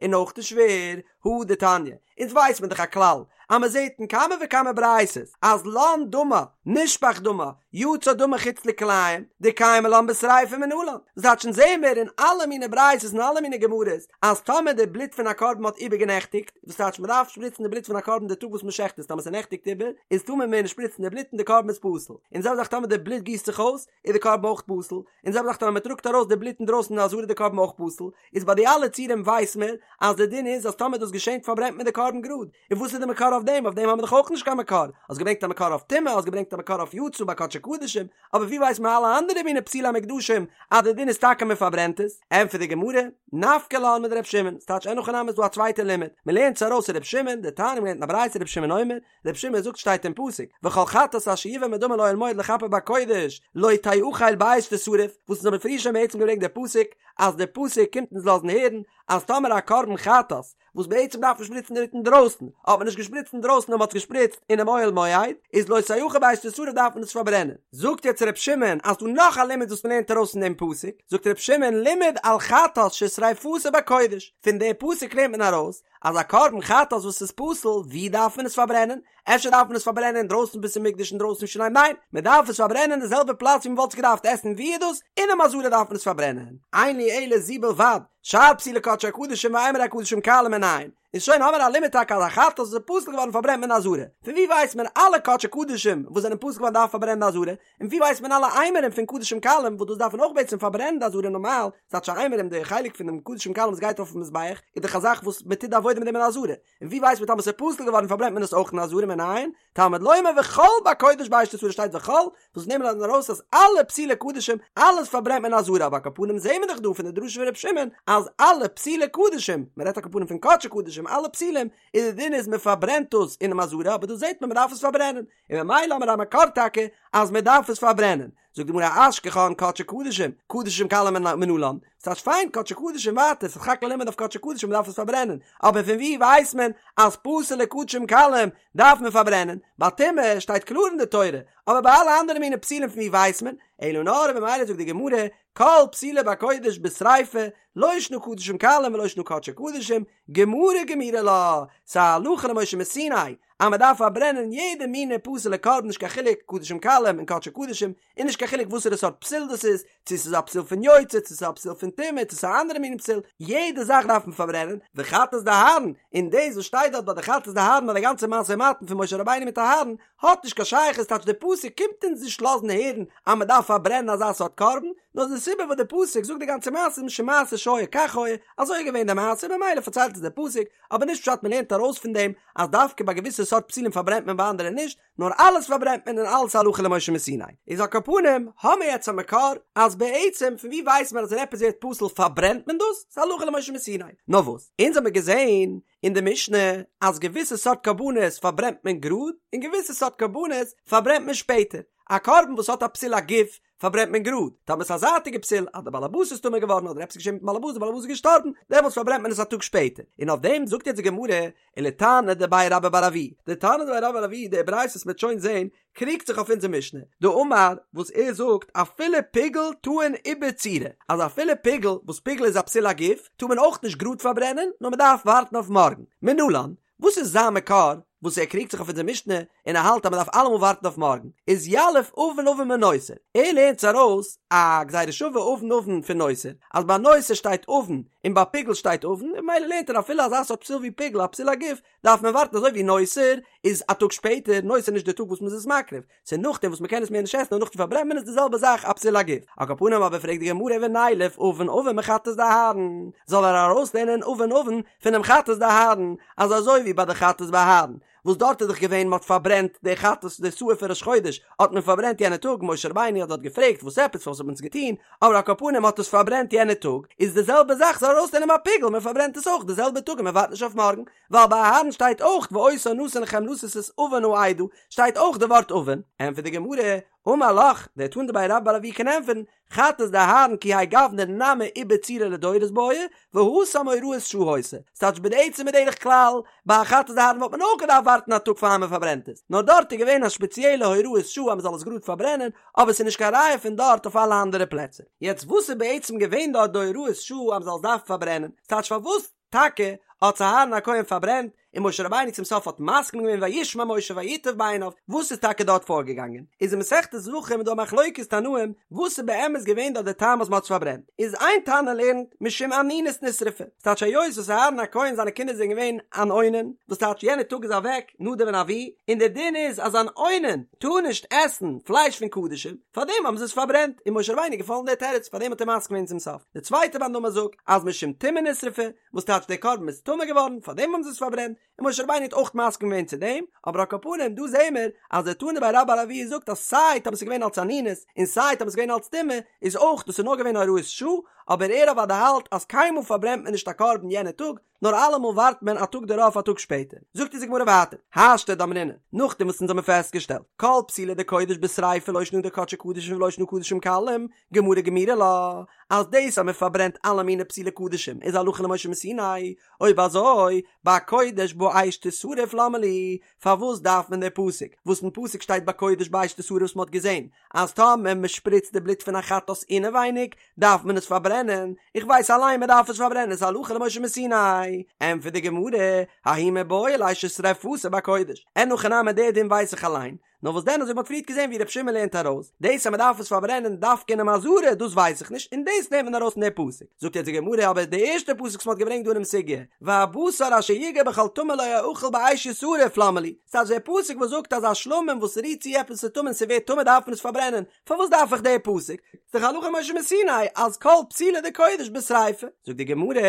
און אויך איז שווער, הא דתניא, אונז ווייסט מען דאך א כלל אז מען זעט אין כמה וכמה ברייתות אז לן דמה, נשפך דמה, יצא דמה חוץ לכלאים, דקיימא לן בשריפה מנלן, וואס טייטש אונז זעהן מיר אין אלע מיני ברייתות און אלע מיני גמרות אז טאמער די בלוט פון א קרבן האט איבערגענעכטיגט, וואס טייטש מען דארף שפריצן די בלוט פון א קרבן די טאג וואס מען שעכט עס, טאמער ס'נעכטיגט איבער איז טאר מען מער נישט שפריצן די בלוט און די קרבן איז פסול, און זעלבע זאך טאמער די בלוט גיסט זיך אויס איז די קרבן אויך פסול, און זעלבע זאך טאמער מען טראגט ארויס די בלוט אינדרויסן אין עזרה איז די קרבן אויך פסול, איז ביי די אלע ציורים ווייס מען אז די דין איז אז טאמער דאס געשענט פארברענט מען די קרבן גראד, און וואס איז די מקור אויף דעם? אויף דעם האבן מיר דאך אויך נישט קיין מקור, האסט געברענגט א מקור אויף טומאה, האסט געברענגט א מקור אויף יצא ביי קדשי קדשים, אבער ווי ווייסט מען אלע אנדערע מיני פסולי המוקדשים אז די דין איז טאקע מען פארברענט עס? ענטפערט די גמרא, נפקא לן מדר' שמעון, ס'טייטש אין הכי נמי איז דא א צווייטע לימוד, מען לערנט עס ארויס ר' שמעון, דתניא מ'לערנט אין א ברייתא ר' שמעון אומר, ר' שמעון זאגט שטייט אין פסוק, וכל חטאת אשר יובא מדמה אל אוהל מועד לכפר בקודש לא תאכל באש תשרף, וואס אונז האבן פריער שוין בעצם געברענגט די פסוק, אז די פסוק קומט אונז לאזן הערן אז טאמער א קרבן חטאת וואס בעצם דארף מען שפריצן די בלוט אינדרויסן, האט מען נישט געשפריצט אינדרויסן נאר מען האט עס געשפריצט אינעם אוהל מועד, איז לא תאכל באש תשרף דארף מען עס פארברענען. זאגט יעצט ר' שמעון אז דא נאך א לימוד וואס מען לערנט ארויס פון דעם פסוק, זאגט ר' שמעון לימד על חטאת ששריפתה בקודש, פון די פסוק לערנט מען ארויס אז א קרבן חטאת וואס איז פסול, ווי דארף מען עס פארברענען? אפשר דארף מען עס פארברענען אינדרויסן בית המקדש אינדרויסן ירושלים? ניין, מען דארף עס פארברענען אין די זעלבע פלאץ ווי מען וואלט עס געדארפט עסן, ווי איז דאס? אינעם עזרה דארף מען עס פארברענען. אין לי אלא זו בלבד, שאר פסולי קדשי קדשים ואימורי קדשים קלים מנין. איז שוין האמער א לימוד טאקע אז א חטאת וואס איז פסול געווארן פארברענט מען אין עזרה. פון ווי ווייסט מען אלע קדשי קדשים וואס זענען פסול געווארן דארף פארברענען אין עזרה? און ווי ווייסט מען אלע אימורים פון קדשים קלים וואס דאס דארף מען אויך בעצם פארברענען די עזרה נארמאל, ס'טייטש אימורים די חלק פונעם קדשים קלים וואס גייט אויפן מזבח איז דאך א זאך וואס מען טוט די עבודה מיט דעם אין עזרה, און ווי ווייסט מען טאמער ס'איז פסול געווארן פארברענט מען עס אויך אין עזרה מנין? תלמוד לומר וכל בקודש באש תשרף שטייט וכל, וואס נעמט מען ארויס אז אלע פסולי קדשים אלעס פארברענט מען אין עזרה אבער על כל פנים זעהן מיר דאך דא פון די דרשה פון ר' שמעון אז אלע פסולי קדשים, מען רעדט על כל פנים פון קדשי קדשים אלע פסולים, איז די דין איז מען פארברענט דאס אינעם עזרה אבער דא זעהט מען מען דארף עס פארברענען, און ממילא האמיר א מקור טאקע אז מען דארף עס פארברענען, זאגט די גמרא אשכחן קדשי קדשים, קדשים קלים מנלן, ס'טייטש פיין קדשי קדשים ווייטער, ס'איז סך הכל א לימוד אויף קדשי קדשים מ'דארף עס פארברענען, אבער פון ווי ווייסט מען אז פסול'ע קדשים קלים דארף מען פארברענען? ביי טומאה שטייט קלאר אין די תורה, אבער ביי אלע אנדערע מיני פסולים פון ווי ווייסט מען? אלא נאר במילא זאגט די גמרא, כל פסולו בקודש בשריפה, לא שנא קדשים קלים ולא שנא קדשי קדשים, גמרא גמירי לה, ס'איז א הלכה למשה מסיני אז מ'דארף פארברענען יעדע מינע פסול'ע קרבן נישט קיין חילוק קדשים קלים און קדשי קדשים, און נישט קיין חילוק וואסערע סארט פסול דאס איז, צו ס'איז א פסול פון יוצא, צו ס'איז א פסול פון טומאה, צו ס'איז א אנדערע מין פסול, יעדע זאך דארף מען פארברענען, וחטאת דאהרן, און דאס וואס שטייט דארט ביי די חטאת דאהרן ביי די גאנצע משא ומתן פון משה רבינו מיט אהרן, האט נישט קיין שייכות, טייטש די פסוק קומט אונז נישט לאזן הערן אז מען דארף פארברענען אזא סארט קרבן, נאר די סיבה וואס די פסוק זאגט די גאנצע מעשה איז משום מעשה שהיה כך היה, אזוי איז געווען די מעשה ממילא פארציילט עס די פסוק, אבער נישט פשט מען לערנט ארויס פון דעם אז דווקא ביי געוויסע סארט פסולים פארברענט מען ביי אנדערע נישט, נאר אלעס פארברענט מען און אלעס הלכה למשה מסיני. איז על כל פנים האמיר יעצט א מקור אז בעצם פון ווי ווייסט מען אז ווען עפעס ווערט פסול פארברענט מען דאס? ס'איז הלכה למשה מסיני. נאר וואס? אונז האמיר געזען אין די משנה אז געוויסע סארט קרבנות פארברענט מען גראד און געוויסע סארט קרבנות פארברענט מען שפעטער. א קרבן וואס האט א פסול הגוף פארברענט מען גראד, טאמער ס'איז א זייטיגע פסול אז דער באלעבאס איז טמא געווארן אדער עפעס איז געשען מיטן באלעבאס דער באלעבאס איז געשטארבן, דעמאלטס פארברענט מען עס א טאג שפעטער. און אויף דעם זאגט יעצט די גמרא, ולתנא דבי רבה בר אבוה, די תנא דבי רבה בר אבוה, די ברייתא וואס מ'וועט שוין זען, קריגט זיך אויף אונזער משנה, דאמר, וואס ער זאגט, אפילו פיגול טעון עיבור צורה, אז אפילו פיגול, וואס פיגול איז א פסול הגוף, טאר מען אויך נישט גראד פארברענען, נאר מ'דארף ווארטן אויף מארגן. מנלן, וואס איז זיין מקור וואס ער קריגט זיך אויף אונזער משנה און ער האלט אז מען דארף אלעמאל ווארטן אויף מארגן איז יליף עון עון מנותר ער לערנט ארויס א גזירה שווה עון עון פון נותר אז ביי נותר שטייט עון און ביי פיגול שטייט עון און ממילא לערנט ער אפילו אזא סארט פסול ווי פיגול א פסול הגוף דארף מען ווארטן אזוי ווי נותר איז א טאג שפעטער נותר נישט די טאג וואס מען איז עס מקריב ס'איז נאכדעם וואס מ'קען עס מער נישט עסן און נאכדעם פארברענט מען עס די זעלבע זאך א פסול הגוף. על כל פנים אבער פרעגט די גמרא ונילף עון עון מחטאת דאהרן, זאל ער ארויסלערנען עון עון פונעם חטאת דאהרן, אז אזוי ווי ביי די חטאת ביי אהרן, וואס דארט איז דאך געווען מ'האט פארברענט די חטאת די שעיר פון ראש חודש האט מען פארברענט יענע טאג, משה רבינו האט דארט געפרעגט וואס עפעס פארוואס האט מען עס געטון, אבער על כל פנים מ'האט עס פארברענט יענע טאג, איז די זעלבע זאך זאל ער ארויסלערנען ביי פיגול מ'פארברענט עס אויך די זעלבע טאג און מ'ווארט נישט אויף מארגן, ווייל ביי אהרן שטייט אויך ואותה נתן לכם לשאת את עון העדה, שטייט אויך די ווארט עון, ענטפערט די גמרא, אמר לך, דער תנא דבי רבה בר אבוה קען ענטפערן, חטאת דאהרן כי האי גוונא נמי עיבור צורה לדורות בעי, והתם הוראת שעה היתה, ס'טייטש בעצם בדרך כלל, ביי א חטאת דאהרן וואלט מען אויך געדארפט ווארטן א טאג פאר מען פארברענט עס, נאר דארט איז געווען א שפעציעלע הוראת שעה אז מען זאל עס גראד פארברענען, אבער ס'איז נישט קיין ראיה פון דארט אויף אלע אנדערע פלעצער. יעצט וואס איז בעצם געווען דארט די הוראת שעה אז מען זאל עס דארפן פארברענען? ס'טייטש פארוואס טאקע האט עס אהרן הכהן פארברענט, און משה רבינו צום סוף האט מסכים געווען וישמע משה וייטב בעיניו, וואס איז טאקע דארט פארגעגאנגען? איז אין מסכת זבחים איז דא א מחלוקת תנאים וואס איז באמת געווען דארט די טעם אז מען האט עס פארברענט, איז איין תנא לערנט משום אנינות נשרפה, ס'טייטש היות וואס אהרן הכהן זיינע קינדער זענען געווען אן אונן, וואס טייטש יענער טאג איז אוועק נדב און אביהוא, און דער דין איז אז אן אונן טאר נישט עסן פלייש פון קדשים, פארדעם האבן זיי עס פארברענט, און משה רבינו איז געפאלן דער תירוץ, פארדעם האט ער מסכים געווען צום סוף. די צווייטע מאן דאמר זאגט אז משום טומאה נשרפה, וואס טייטש דער קרבן איז טמא געווארן, פארדעם האבן זיי עס פארברענט, און משה רבינו האט אויך מסכים געווען צו דעם, אבער על כל פנים דא זעהן מיר אז דער תנא דבי רבה בר אבוה זאגט אז סיי טאמער ס'איז געווען אלץ אנינות און סיי טאמער ס'איז געווען אלץ טומאה איז אויך דאס איז נאר געווען הוראת שעה, אבער ער אוודאי האלט אז קיינמאל פארברענט מען נישט א קרבן יענע טאג, נאר אלעמאל ווארט מען א טאג דערויף א טאג שפעטער. זאגט אונז די גמרא ווייטער, השתא דאמרינן, נאכדעם וואס אונז האבן פעסטגעשטעלט, כל פסולי דקודש בשריפה לא שנא דקדשי קדשים ולא שנא קדשים קלים, גמרא גמירי לה, אז דאס אז מען פארברענט אלע מיני פסולי קדשים איז הלכה למשה מסיני, אויב אזוי, בקודש באש תשרף למה לי, פארוואס דארף מען די פסוק, וואס אין פסוק שטייט בקודש באש תשרף וואס מען האט געזען אז טאמער מען שפריצט די בלוט פון א חטאת אינעווייניג דארף מען עס פארברענען, איך ווייס אליין מען דארף עס פארברענען ס'איז הלכה למשה מסיני, ענטפערט די גמרא, ההוא מיבעי ליה ששריפתו בקודש, אין הכי נמי די דין ווייס איך אליין, נאר וואס דען אזוי ווי מ'האט פריערט געזען ווי ר' שמעון לערנט ארויס, דאס אז מ'דארף עס פארברענען דווקא אינעם עזרה דאס ווייס איך נישט און דאס לערנט מען ארויס פון די פסוק, זאגט יעצט די גמרא אבער די ערשטע פסוק וואס מ'האט געברענגט דא אינעם סוגיא, והבשר אשר יגע בכל טמא לא יאכל באש ישרף למה לי, ס'טייטש דער פסוק וואס זאגט אז א שלמים וואס רירט צו עפעס ס'איז טמא און ס'ווערט טמא דארף מען עס פארברענען, פארוואס דארף איך די פסוק? ס'דאך הלכה למשה מסיני אז כל פסולי דקודש בשריפה. זאגט די גמרא,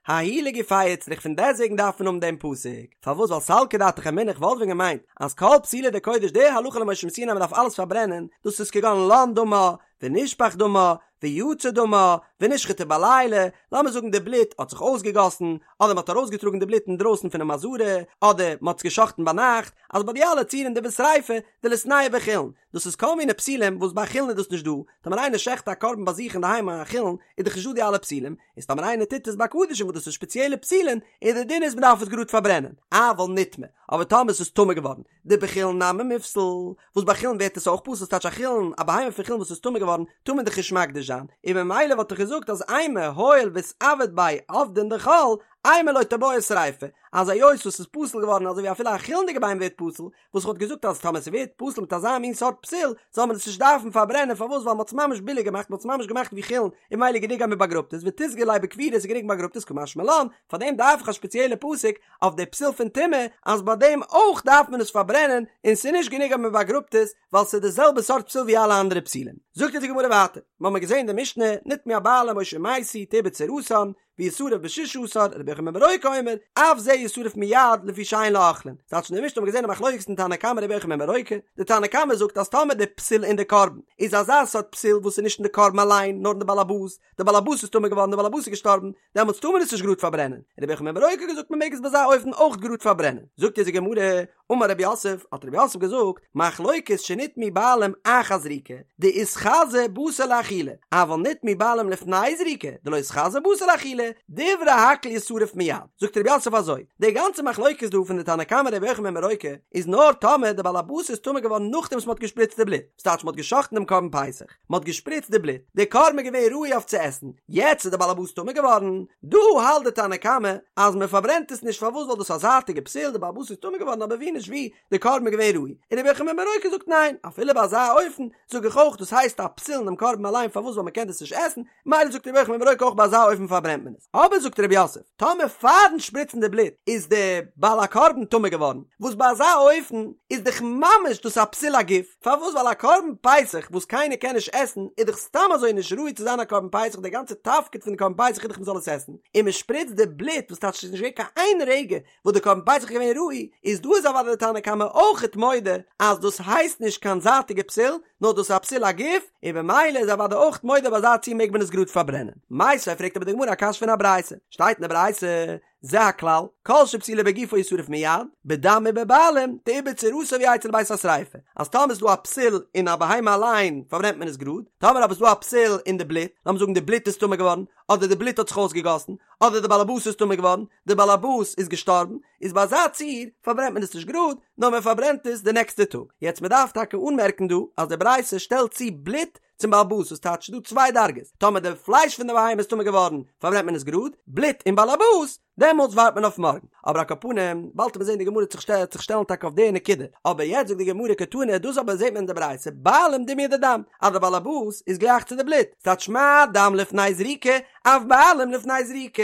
ההוא לגופיה איצטריך פון דעסוועגן דארף מען האבן דעם פסוק, פארוואס ווייל סלקא דעתך אמינא איך וואלט ווען געמיינט אז כל פסולי דקודש די הלכה למשה מסיני אז מ'דארף אלעס פארברענען, דאס איז כגון לן דמה ונשפך דמה. ויצא דמה, ונשחטה בלילה, לאמיר זאגן די בלוט האט זיך אויסגעגאסן, אדער מ'האט ארויסגעטראגן די בלוט אינדרויסן פונעם עזרה, אדער מ'האט עס גע'שחט'ן ביינאכט, אז ביי די אלע ציורים דבשריפה, דליתנהו בחולין, דאס איז כל מיני פסולים וואס ביי חולין איז דאס נישט דא, טאמער איינער שעכט א קרבן ביי זיך אינדערהיים א חולין, איז דאך נישט דא די אלע פסולים, איז טאמער איינער טוט עס ביי קדשים וואס דאס איז שפעציעלע פסולין, איז די דין איז מ'דארף עס גראד פארברענען, אבל נטמא, אבער טאמער עס איז טמא געווארן, דבחולין נמי מיפסל, וואס ביי חולין ווערט עס אויך פסול, ס'טייטש א חולין, א בהמה פון חולין וואס איז טמא געווארן, טאר מען דאך נישט מקדיש זיין, און ממילא וואלט איך געזאגט אז אימא הואיל ואיתעביד ביה עבדין דחול, אימא לא תיבעי שריפה, אז היות וואס ס'איז פסול געווארן אזוי ווי אפילו א חולין'דיגע בהמה ווערט פסול, וואס כ'וואלט געזאגט אז טאמער ס'ווערט פסול מיט אזא מין סארט פסול, זאל מען עס נישט דארפן פארברענען, פארוואס ווייל מ'האט עס ממש ביליג געמאכט, מ'האט עס ממש געמאכט ווי חולין, און ממילא גענוג אז מ'באגראבט עס, ותיסגי ליה בקבורה ס'איז גענוג מ'באגראבט עס, קא משמע לן, פארדעם דארף איך א שפעציעלע פסוק אויף די פסול פון טומאה אז ביי דעם אויך דארף מען עס פארברענען און ס'איז נישט גענוג אז מען באגראבט עס ווייל ס'איז די זעלבע סארט פסול ווי אלע אנדערע פסולים. זאגט אונז די גמרא ווייטער, מ'האמיר געזען די משנה, נטמאו הבעלים או שמתו תעובר צורתן, וישרף בששה עשר, רבי יוחנן בן ברוקה אומר, אף זה ישרף מיד לפי שאין לו אוכלין. ס'טייטש אין די משנה האבן מיר געזען א מחלוקת אין תנא קמא רבי יוחנן בן ברוקה, די תנא קמא זאגט אז טאמער די פסול אין די קרבן איז אזא סארט פסול וואס איז נישט אין די קרבן אליין נאר אין די בעל הבית, די בעל הבית איז טמא געווארן די בעל הבית איז געשטארבן, דעמאלטס טאר מען עס נישט גראד פארברענען, רבי יוחנן בן ברוקה האט געזאגט מען מעג עס ביי אזא אופן אויך גראד פארברענען, זאגט אונז די גמרא, אמר רב יוסף, האט רב יוסף געזאגט, מחלוקת שנטמאו בעלים אחר זריקה, דאיתחזי בתר לאכילה, אבל נטמאו בעלים לפני זריקה, דלא איתחזי בתר לאכילה, דברי הכל ישרף מיד, זאגט רב יוסף אזוי, די גאנצע מחלוקת דא פון די תנא קמא רבי יוחנן בן ברוקה, איז נאר טאמער די בעל הבית איז טמא געווארן נאכדעם וואס מען האט געשפריצט די בלוט, ס'טייטש מען האט גע'שחט'ן דעם קרבן פסח, מען האט געשפריצט די בלוט, די קרבן איז געווען ראוי אויף צו עסן, יעצט איז די בעלעבאס טמא געווארן, דא האלט די תנא קמא אז מען פארברענט עס נישט פארוואס ווייל דאס איז א זייטיגע פסול, די בעלעבאס איז טמא געווארן אבער ווי נישט ווי, די קרבן איז געווען ראוי, און רבי יוחנן בן ברוקה זאגט ניין, אפילו ביי אזא אופן זאג איך אויך דאס הייסט א פסול אינעם קרבן אליין פארוואס ווייל מען קען דאס נישט עסן, מילא זאגט רבי יוחנן בן ברוקה אויך ביי אזא אופן פארברענט מען עס, אבער זאגט רב יוסף, טאמער פארן שפריצן די בלוט איז די בעל הקרבן טמא געווארן, וואס ביי אזא אופן איז דאך ממש דאס א פסול הגוף, פארוואס ווייל א קרבן פסח וואס קיינער קען נישט עסן איז דאך סתם אזוי נישט ראוי צו זיין א קרבן פסח די גאנצע תפקיד פון די קרבן פסח איז דאך מען זאל עס עסן, און מען שפריצט די בלוט וואס טייטש ס'איז נישט געווען קיין איין רגע וואס די קרבן פסח איז געווען ראוי, איז דא איז אוודאי די תנא קמא אויכעט מודה אז דאס הייסט נישט קיין זייטיגע פסול, נאר דאס איז א פסול הגוף, און במילא איז אוודאי אויכט מודה ביי אזא ציור מעג מען עס גראד פארברענען. מיתיבי פרעגט אבער די גמרא א קשיא פון א ברייתא, שטייט אין די ברייתא, זה הכלל, כל שפסולו בגופו ישרף מיד, בדם ובבעלים, תעובר צורתו ויצא לבית השריפה, אז טאמער איז דא א פסול אין א בהמה אליין פארברענט מען עס גראד, טאמער אבער איז דא א פסול אין די בלוט, לאמיר זאגן די בלוט איז טמא געווארן, אדער די בלוט האט זיך אויסגעגאסן, אדער די באלעבאס איז טמא געווארן, די באלעבאס איז געשטארבן, איז ביי אזא ציור פארברענט מען עס נישט גראד, נאר מען פארברענט עס די נעקסטע טאג. יעצט מען דארף טאקע אנמערקן דא אז די ברייתא שטעלט צו בלוט צום באלעבאס וואס טייטש ס'דא צוויי דרגות, טאמער די פלייש פון די בהמה איז טמא געווארן פארברענט מען עס גראד, בלוט און באלעבאס, דעמאלטס ווארט מען אויף מארגן. אבער על כל פנים, באלד וועט מען זען די גמרא וועט זיך שטעלן טאקע אויף די נקודה. אבער יעצט זאגט די גמרא קתני, דאס אבער זעט מען אין די ברייתא, בעלים דומיא דדם, אז די באלעבאס איז גלייך צו די בלוט, ס'טייטש מה דם לפני זריקה, אף בעלים לפני זריקה,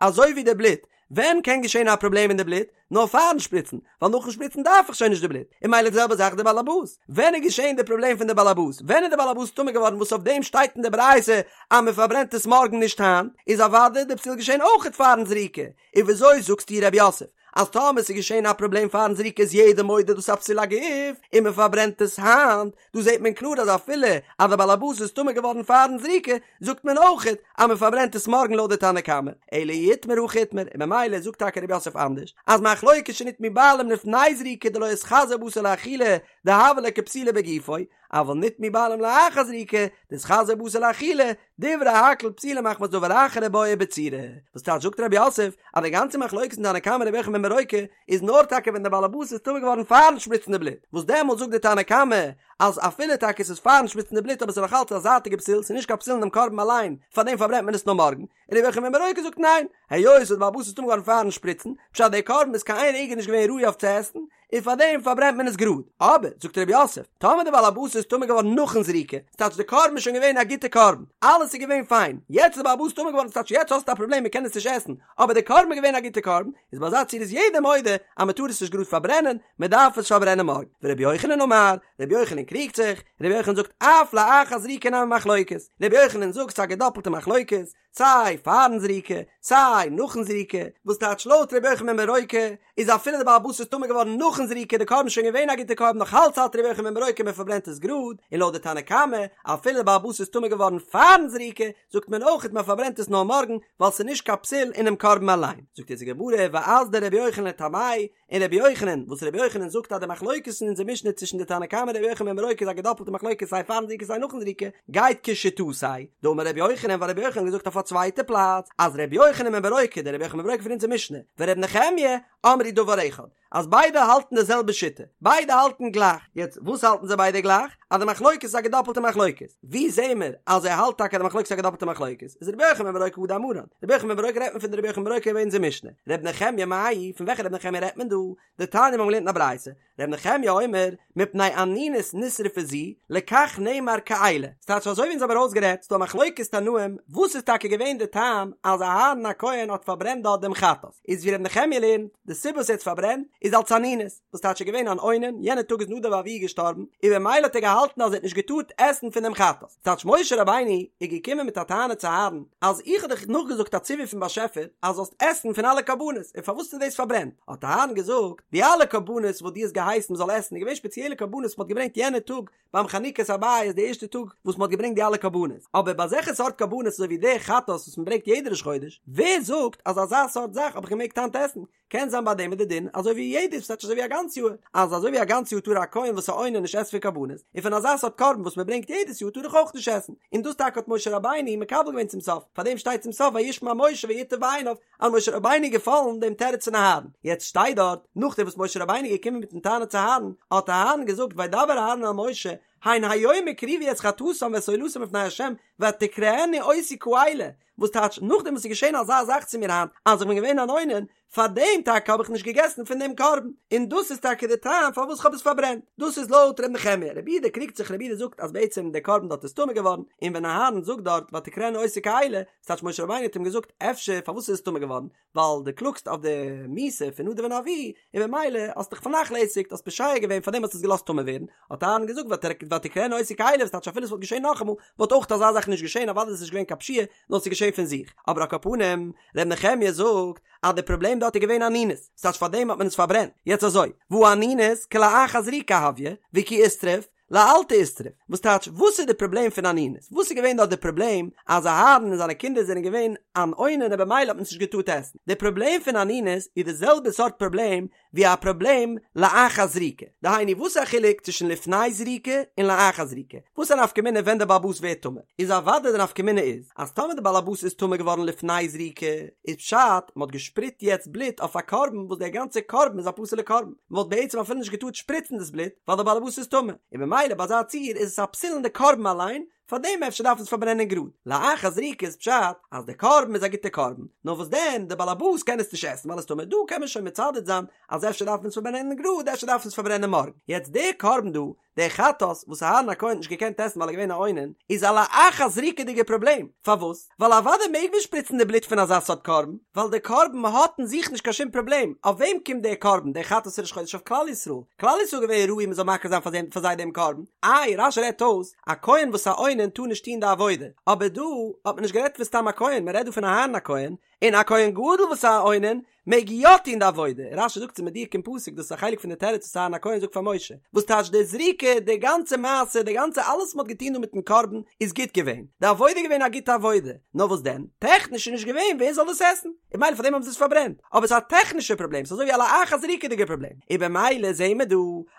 אזוי ווי די בלוט, ווען קען געשען א פראבלעם אין די בלוט? נאר פארן שפריצן, ווייל נאכן שפריצן דארף איך שוין נישט די בלוט, און מילא די זעלבע זאך די באלעבאס, ווען איז געשען די פראבלעם פון די באלעבאס? ווען איז די באלעבאס טמא געווארן וואס אויף דעם שטייט אין די ברייתא אז מען פארברענט עס מארגן נישט היינט, איז אוודאי די פסול געשען אויכעט פארן זריקה, און וויאזוי זאגסטו רב יוסף אז טאמער ס'איז געשען א פראבלעם פארן זריקה איז יעדער מודה דאס א פסול הגוף און מען פארברענט עס היינט, דא זעט מען קלאר אז אפילו אז די באלעבאס איז טמא געווארן פארן זריקה זאגט מען אויכעט אז מען פארברענט עס מארגן לויט די תנא קמא, אלא אי איתמר הכי איתמר, און ממילא זאגט טאקע רב יוסף אנדערש אז מחלוקת שנטמאו בעלים לפני זריקה דלא איתחזי בתר לאכילה דהוה ליה כפסולו בגופו, אבל נטמאו בעלים לאחר זריקה דאיתחזי בתר לאכילה, דברי הכל פסולה מחמת דבר אחר ובעיא בצורה. וואס טייטש זאגט רב יוסף אז די גאנצע מחלוקת אין תנא קמא רבי יוחנן בן ברוקה איז נאר טאקע ווען דער באלעבאס איז טמא געווארן פארן שפריצן די בלוט, וואס דעמאלט זאגט די תנא קמא אז אפילו טאקע עס איז פארן שפריצן די בלוט אבער עס איז נאך אלץ א זייטיגע פסול ס'איז נישט קיין פסול אינעם קרבן אליין פארדעם פארברענט מען עס נאר מארגן, און רבי יוחנן בן ברוקה זאגט ניין, היות וואס דער באלעבאס איז טמא געווארן פארן שפריצן, פשט דער קרבן איז קיין איין רגע נישט געווען ראוי אויף צו עסן, און פאר דעם פארברענט מען עס גראד. אבער, זאגט רב יוסף, טאמער דער בעל הבית איז טמא געווארן נאכן זריקה, ס'טייטש די קרבן איז שוין געווען א גוטע קרבן, אלעס איז געווען פיין, יעצט איז דער בעל הבית טמא געווארן ס'טייטש יעצט האסטו א פראבלעם מען קען עס נישט עסן, אבער די קרבן איז געווען א גוטע קרבן, איז ביי אזא ציור איז יעדער מודה אז מען טאר עס נישט גראד פארברענען, מען דארף עס פארברענען מארגן. ורבי יוחנן אמר, רבי יוחנן קריגט זיך, רבי יוחנן זאגט אף לאחר זריקה נמי מחלוקת, רבי יוחנן זאגט ס'איז א געדאפלטע מחלוקת, סיי פארן זריקה, סיי נאכן זריקה, וואס טייטש לויט ר' יוחנן בן ברוקה איז אפילו די בעל הבית איז טמא געווארן נאכן זריקה די קרבן שוין געווען א גוטע קרבן נאך אלץ האלט ר' יוחנן בן ברוקה מען פארברענט עס גראד, און לויט די תנא קמא אפילו די בעל הבית איז טמא געווארן פארן זריקה זאגט מען אויכעט מען פארברענט עס נאר מארגן ווייל ס'איז נישט קיין פסול אינעם קרבן אליין, זאגט אונז די גמרא ואזדא רבי יוחנן לטעמיה און רבי יוחנן, וואס רבי יוחנן זאגט אז די מחלוקת אין אונזער משנה צווישן די תנא קמא און רבי יוחנן בן ברוקה איז א געדאפלטע מחלוקת סיי פארן זריקה סיי נאכן זריקה, גייט כשיטתיה, דאמר רבי יוחנן ווייל רבי יוחנן האט געזאגט אויף א צווייטע פלאץ אז רבי יוחנן בן ברוקה דער רבי יוחנן בן ברוקה פון אונזער משנה ורבי נחמיה אמרו דבר אחד אז ביידע האלטן די זעלבע שיטה, ביידע האלטן גלייך, יעצט וואס האלטן זיי ביידע גלייך? אז די מחלוקת איז א געדאפלטע מחלוקת, ווי זעהן מיר אז ער האלט טאקע אז די מחלוקת איז א געדאפלטע מחלוקת? איז רבי יוחנן בן ברוקה הא דאמרן, רבי יוחנן בן ברוקה רעדט מען פון די רבי יוחנן בן ברוקה אין אונזער משנה, רבי נחמיה מאי, פון וועלכע רבי נחמיה רעדט מען דא? דתניא מיר האבן געלערנט אין א ברייתא, רבי נחמיה אומר, מפני אנינות נשרפה זו, לכך נאמר כאלה, ס'טייטש אזוי ווי אונז האבן ארויסגערעדט, ס'דא א מחלוקת תנאים, וואס איז טאקע געווען די טעם אז אהרן הכהן האט פארברענט דארט דעם חטאת, איז ווי רבי נחמיה לערנט, די סיבה וואס ער האט פארברענט איז אלס אנינות, וואס טייטש ער געווען אן אונן, יענע טאג איז נדב ואביהוא געשטארבן, און במילא האט ער געהאלטן אז ער האט נישט געטארט עסן פון דעם חטאת. ס'טייטש משה רבינו איז געקומען מיט א טענה צו אהרן, אז איך האב דיך נאכגעזאגט א ציווי פון באשעפער אז זאלסט עסן פון אלע קרבנות, און פארוואס האסטו דאס פארברענט? האט אהרן געזאגט, די אלע קרבנות וואס דו האסט געהייסן מ'זאל עסן איז געווען שפעציעלע קרבנות וואס מ'האט געברענגט יענע טאג ביים חנוכת הבית די ערשטע טאג וואס מ'האט געברענגט די אלע קרבנות, אבער ביי אזעלכע סארט קרבנות אזוי ווי די חטאת וואס מ'ברענגט יעדע ראש חודש, ווער זאגט אז אזא סארט זאך האב איך געמעגט היינט עסן? קען זיין ביי דעם איז די דין אזוי ווי יעדער ס'טייטש אזוי ווי א גאנץ יאר, אז אזוי ווי א גאנץ יאר טאר א כהן וואס איז א אונן נישט עסן פון קרבנות, און פון אזא סארט קרבן וואס מען ברענגט יעדעס יאר טאר איך אויך נישט עסן, און דאס טאקע האט משה רבינו מקבל געווען צום סוף, פאר דעם שטייט צום סוף וישמע משה וייטב בעיניו, אז משה רבינו איז געפאלן דעם תירוץ פון אהרן, יעצט שטייט דארט, נאכדעם וואס משה רבינו איז געקומען מיטן טענה צו אהרן, האט אהרן געזאגט וידבר אהרן אל משה, הן היום הקריבו את חטאתם ואת עולתם לפני ה' ותקראנה אותי כאלה, וואס טייטש נאכדעם וואס איז געשען אזא זאך צו מיר היינט אז איך בין געווען אן אונן, פאר דעם טאקע האב איך נישט געגעסן פון דעם קרבן, און דאס איז טאקע די טעם פארוואס איך האב עס פארברענט, דאס איז לויט ר' נחמיה, רבי יהודה קריגט זיך רבי יהודה זאגט אז בעצם דער קרבן דארט איז טמא געווארן, און ווען אהרן זאגט דארט ותקראנה אותי כאלה, ס'טייטש משה רבינו האט אים געזאגט אפשר פארוואס איז עס טמא געווארן, ווייל דו קלאגסט אויף די מיתה פון נדב און אביהוא, און במילא האסט דיך פארנאכלעסיגט, האסט פושע געווען פארדעם האסטו עס געלאזט טמא ווערן, האט אהרן געזאגט ותקראנה אותי כאלה, וואס טייטש אפילו עס וואלט געשען נאכאמאל, וואלט אויך אזא זאך נישט געשען, אוודאי איז עס נישט געווען קיין פשיעה, נאר עס איז געשען פון זיך, אבער על כל פנים, ר' נחמיה זאגט אז די פראבלעם דארט איז געווען אנינות, ס'טייטש פארדעם האט מען עס פארברענט, יעצט אזוי, והא אנינות כלאחר זריקה הויא, וכי אישתריף, לאלתר אישתריף, וואס טייטש וואס איז די פראבלעם פון אנינות? וואס איז געווען דארט די פראבלעם אז אהרן און זיינע קינדער זענען געווען אן אונן און במילא האט מען עס נישט געטארט עסן? די פראבלעם פון אנינות איז די זעלבע סארט פראבלעם ווי א פראבלעם לאחר זריקה, דהיינו וואס איז א חילוק צווישן לפני זריקה און לאחר זריקה? וואס איז א נפקא מינה ווען די בעל הבית ווערט טמא? איז אוודאי די נפקא מינה איז אז טאמער די בעל הבית איז טמא געווארן לפני זריקה איז פשט מען האט געשפריצט יעצט בלוט אויף א קרבן וואס דער גאנצער קרבן איז א פסול'ע קרבן, מען וואלט בעצם אפילו נישט געטארט שפריצן דאס בלוט ווייל דער בעל הבית איז טמא, און במילא ביי אזא ציור איז עס א פסול אין די קרבן אליין, פארדעם אפשר דארף מען עס פארברענען גראד. לאחר זריקה איז פשט אז די קרבן איז א גוטע קרבן, נאר וואס דען די בעל הבית קען עס נישט עסן ווייל עס איז טמא, דא קען מען שוין מצדד זיין אז אפשר דארף מען עס פארברענען גראד אפשר דארף מען עס פארברענען מארגן. יעצט דער קרבן דא, דער חטאת וואס אהרן הכהן האט נישט געקענט עסן ווייל ער איז געווען א אונן, איז א לאחר זריקה'דיגע פראבלעם, פארוואס? ווייל אוודאי מעג מען שפריצן די בלוט פון אזא סארט קרבן, ווייל דער קרבן האט אין זיך נישט קיין שום פראבלעם, אויף וועם קומט דער קרבן, דער חטאת ראש חודש אויף כלל ישראל, כלל ישראל איז געווען ראוי מען זאל מקריב זיין פאר זיי דעם קרבן, איי רש"י רעדט אויס, א כהן וואס א אונן טאר נישט טון די עבודה, אבער דא האט מען נישט גערעדט פון סתם א כהן, מען רעדט דא פון אהרן הכהן, און א כהן גדול וואס א אונן מעג יא טון די עבודה, רש"י זאגט ס'איז מדויק אין פסוק, דאס איז א חלק פון די תירוץ וואס אהרן הכהן זאגט פאר משה, וואס טייטש די זריקה, די גאנצע מעשה, די גאנצע אלעס וואס מ'האט געטון דא מיטן קרבן איז גוט געווען, די עבודה איז געווען א גוטע עבודה, נאר וואס דען, טעכניש איז נישט געווען ווער זאל דאס עסן, און במילא פארדעם האבן זיי עס פארברענט, אבער ס'איז א טעכנישע פראבלעם, ס'איז אזוי ווי א לאחר זריקה'דיגע פראבלעם, און במילא זעהן מיר דא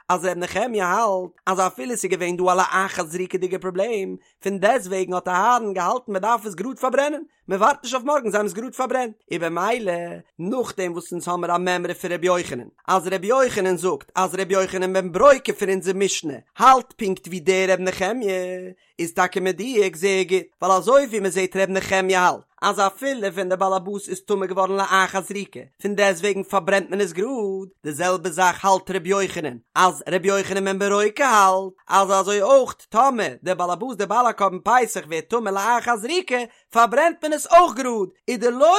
אז ר' נחמיה האלט אז אפילו ס'איז געווען דא א לאחר זריקה'דיגע פראבלעם, פון דעסטוועגן האט אהרן געהאלטן מ'דארף עס גראד פארברענען, מען ווארט נישט אויף מארגן זיי האבן עס גראד פארברענט, און במילא נאכדעם וואס אונז האמער א מימרא פון ר' יוחנן אז ר' יוחנן זאגט אז ר' יוחנן בן ברוקה פון אונזער משנה האלט פונקט ווי דער ר' נחמיה איז טאקע מדויק זייער גוט ווייל אזוי ווי מען זעט ר' נחמיה האלט אז אפילו ווען דער בעל הבית איז טמא געווארן לאחר זריקה פון דעסטוועגן פארברענט מען עס גראד, די זעלבע זאך האלט ר' יוחנן אז ר' יוחנן בן ברוקה האלט אז אזוי אויך טאמער דער בעל הבית דער בעל הקרבן פסח ווערט טמא לאחר זריקה פארברענט מען עס אויך גראד, ודלא.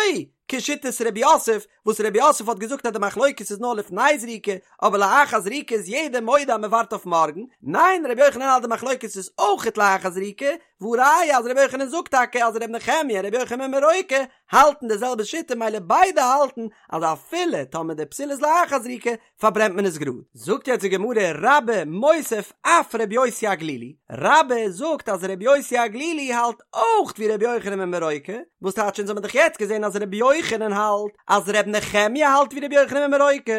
כשיטת רב יוסף, וואס רב יוסף האט געזאגט אז די מחלוקת איז נאר לפני זריקה, אבער לאחר זריקה איז יעדער מודה אז מען ווארט אויף מארגן, ניין רבי יוחנן האלט די מחלוקת איז אויכעט לאחר זריקה, והא ראיה אז רבי יוחנן זאגט טאקע אז רבי נחמיה און רבי יוחנן בן ברוקה האלטן די זעלבע שיטה מילא ביידע האלטן אז אפילו טאמער די פסול איז לאחר זריקה פארברענט מען עס גראד. זאגט יעצט די גמרא רבה מוסיף אף רבי יוסי הגלילי, רבה זאגט אז רבי יוסי הגלילי האלט אויך ווי רבי יוחנן בן ברוקה, וואס טייטש אונז האבן דאך יעצט געזען אז רבי יוחנן האלט אז רבי נחמיה האלט ווי רבי יוחנן בן ברוקה,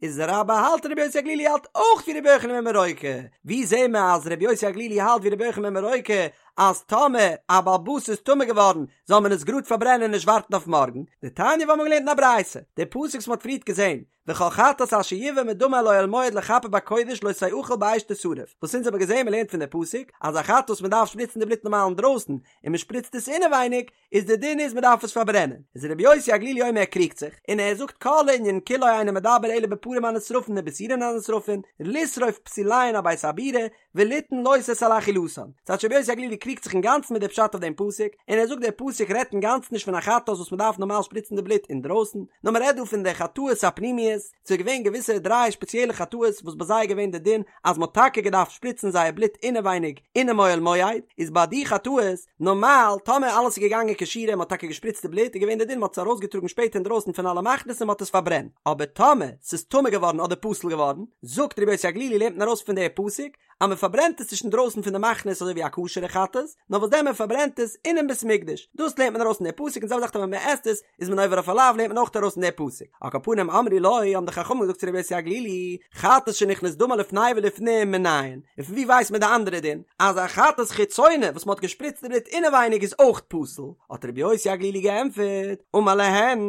איז רבה האלט רבי יוסי הגלילי האלט אויך ווי רבי יוחנן בן ברוקה, ווי זעהן מיר אז רבי יוסי הגלילי האלט ווי רבי יוחנן בן ברוקה אז טאמער א בעל הבית איז טמא געווארן זאל מען עס גראד פארברענען און נישט ווארטן אויף מארגן, דתניא וואס מ'האט געלערנט אין א ברייתא, די פסוק וואס מ'האט פריערט געזען, וכל חטאת אשר יבא מדמה אל אוהל מועד לכפר בקודש לא תאכל באש תשרף, וואס אונז האבן געזען מ'לערנט פון די פסוק אז א חטאת וואס מ'דארף שפריצן די בלוט נארמאל אינדרויסן און מ'שפריצט עס אינעווייניג איז די דין איז מ'דארף עס פארברענען, איז רבי יוסי הגלילי אומר ער קריגט זיך און ער זאגט כל הענין כולו אינו מדבר אלא בפרים הנשרפין ובשעירין הנשרפין לשרוף פסוליהן על בית הבירה וליתן לא תעשה על אכילתן. ס'טייטש רבי יוסי הגלילי קריגט זיך אינגאנצן מיט די פשט אויף דעם פסוק, און ער זאגט דער פסוק רעדט אינגאנצן נישט פון א חטאת וואס מ'דארף נארמאל שפריצן די בלוט אינדרויסן, נאר מ'רעדט דא פון די חטאות הפנימיות, ס'איז געווען געוויסע דריי שפעציעלע חטאות וואס ביי זיי איז געווען די דין אז מ'האט טאקע געדארפט שפריצן זייער בלוט אינעווייניג אינעם אוהל מועד, איז ביי די חטאות, נארמאל, טאמער אלעס איז געגאנגען כשורה און מ'האט טאקע געשפריצט די בלוט, איז געווען די דין מ'האט עס ארויסגעטראגן שפעטער אינדרויסן פון אלע מחנות און מ'האט עס פארברענט. אבער טאמער ס'איז טמא געווארן אדער פסול געווארן, זאגט רבי יוסי הגלילי לערנט מען ארויס פון די פסוק אז מען פארברענט עס נישט אינדרויסן פון די מחנות אזוי ווי א כשר'ע חטאת, נאר וואס דען מען פארברענט עס אינעם בית מקדש, דאס לערנט מען ארויס פון די פסוק און זעלבע זאך טאמער מען עסט עס איז מען עובר אויף א לאו לערנט מען אויך ארויס פון די פסוק. על כל פנים אמרו לו האבן די חכמים געזאגט צו רבי יוסי הגלילי, חטאת שנכנס דמה לפני ולפנים מנין, און פון ווי ווייסט מען די אנדערע דין אז א חטאת חיצונה וואס מען האט געשפריצט די בלוט אינעווייניג איז אויך פסול, האט רבי יוסי הגלילי געענטפערט, אמר להן,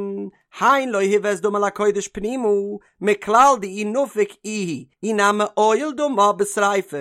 הן לא הובא את דמה לקודש פנימה, מכלל דאי נפיק איהו, אי נמי עייל דמה בשריפה.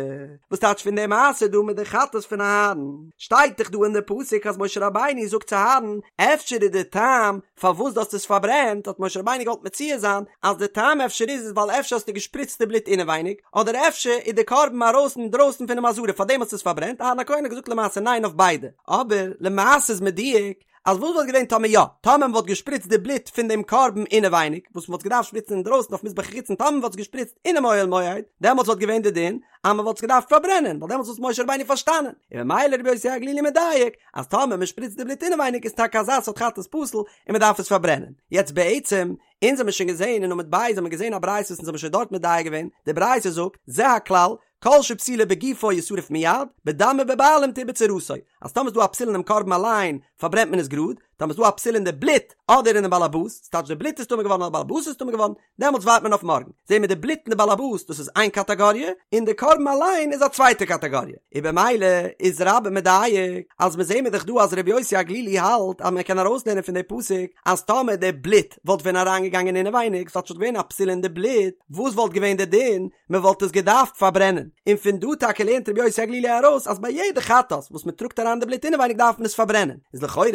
וואס טייטש פון די מעשה דא מיט די חטאת פון אהרן? שטייט דאך דא אין די פסוק אז משה רבינו זאגט צו אהרן, אפשר איז די טעם פארוואס דו האסט עס פארברענט, האט משה רבינו געוואלט מציע זיין אז די טעם אפשר איז איז ווייל אפשר האסטו געשפריצט די בלוט אינעווייניג, אדער אפשר איז די קרבן ארויס אינדרויסן פונעם עזרה פארדעם האסטו עס פארברענט, אהרן הכהן האט געזאגט למעשה ניין אויף ביידע, אבער למעשה איז מדויק אז וואס וואלט געווען טאמער יא, טאמער מען וואלט געשפריצט די בלוט פון דעם קרבן אינעווייניג, וואס מען וואלט געדארפט שפריצן אינדרויסן אויף מזבח החיצון, טאמער מען וואלט עס געשפריצט אינעם אוהל מועד, דעמאלטס וואלט געווען די דין אז מען וואלט עס געדארפט פארברענען, ווייל דעמאלטס וואלט משה רבינו פארשטאנען, און ממילא רבי יוסי הגלילי מדייק, אז טאמער מען שפריצט די בלוט אינעווייניג איז טאקע אזא סארט חטאת פסול און מען דארף עס פארברענען. יעצט בעצם, אונז האמיר שוין געזען אין עמוד ב' האמיר געזען א ברייתא וואס אונז האמיר שוין דארט מדייק געווען, די ברייתא זאגט, זה הכלל, כל שפסולו בגופו ישרף מיד, בדם ובבעלים תעובר צורתו, אז טאמער איז דא א פסול אינעם קרבן אליין, פארברענט מען עס גראד, טאמער איז דא א פסול אין די בלוט, אדער אינעם באלעבאס, ס'טייטש די בלוט איז טמא געווארן אדער באלעבאס איז טמא געווארן, דעמאלטס ווארט מען אויף מארגן. זעהן מיר די בלוט און די באלעבאס דאס איז איין קאטאגאריע, און די קרבן אליין איז א צווייטע קאטאגאריע. און במילא איז רבה מדייק, אז מיר זעהן מיר דאך דא אז ר' יוסי הגלילי האלט אז מען קען ארויסלערנען פון די פסוק אז טאמער די בלוט וואלט ווען אריינגעגאנגען אינעווייניג, ס'וואלט שוין געווען א פסול אין די בלוט, וואס וואלט געווען די דין? מען וואלט עס געדארפט פארברענען, און פון דא טאקע לערנט רבי יוסי הגלילי ארויס אז ביי יעדע חטאת וואס מען טראגט אריין די בלוט אינעווייניג דארף מען עס פארברענען, איז לכאורה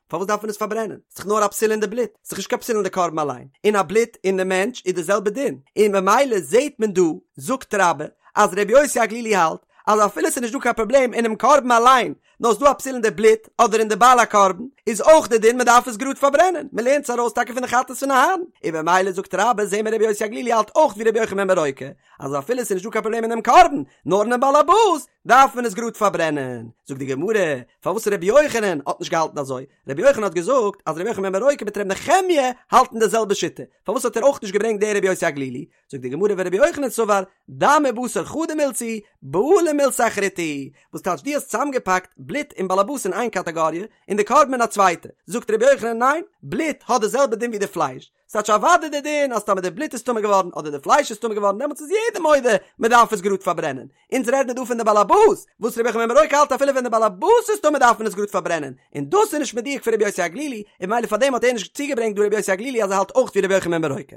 פארוואס דארף מען עס פארברענען? ס'איז דאך נאר א פסול אין די בלוט, ס'איז דאך נישט קיין פסול אין די קרבן אליין, און א בלוט אין די מענטש איז די זעלבע דין, און ממילא זעט מען דא, זאגט רבה, אז רבי יוסי הגלילי האלט אז אפילו ס'איז נישט דא קיין פראבלעם אינעם קרבן אליין, נאר ס'דא א פסול אין די בלוט אדער אין די בעל הקרבן, איז אויך די דין מ'דארף עס גראד פארברענען, מ'לערנט עס ארויס טאקע פון די חטאת פון אהרן, און במילא זאגט רבה זעהן מיר רבי יוסי הגלילי האלט אויך ווי רבי יוחנן בן ברוקה, אז אפילו ס'איז נישט דא קיין פראבלעם אינעם קרבן, נאר אינעם בעל הבית, דארף מען עס גראד פארברענען. זאגט די גמרא, פארוואס רבי יוחנן האט נישט געהאלטן אזוי? רבי יוחנן האט געזאגט אז רבי יוחנן בן ברוקה מיט רבי נחמיה האלטן די זעלבע שיטה, פארוואס האט ער אויך נישט געברענגט די רבי יוסי הגלילי? זאגט די גמרא ורבי יוחנן סבר דם ובשר חדא מילתא היא, בעלים מילתא אחריתי היא, וואס טייטש דו האסט צוזאמגעפאקט בלוט און באלעבאס אין איין קאטאגאריע און די קרבן אין א צווייטע, זאגט רבי יוחנן ניין, בלוט האט די זעלבע דין ווי די פלייש, ס'טייטש אוודאי די דין אז טאמער די בלוט איז טמא געווארן אדער די פלייש איז טמא געווארן דעמאלטס איז יעדער מודה מען דארף עס גראד פארברענען, אונז רעד מיר דא פון די באלעבאס, וואס רבי יוחנן בן ברוקה האלט אפילו ווען די באלעבאס איז טמא דארף מען עס גראד פארברענען, און דאס איז נישט מדויק פון רבי יוסי הגלילי, און ממילא פארדעם האט ער נישט צוגעברענגט דא רבי יוסי הגלילי אז ער האלט אויך ווי רבי יוחנן בן ברוקה.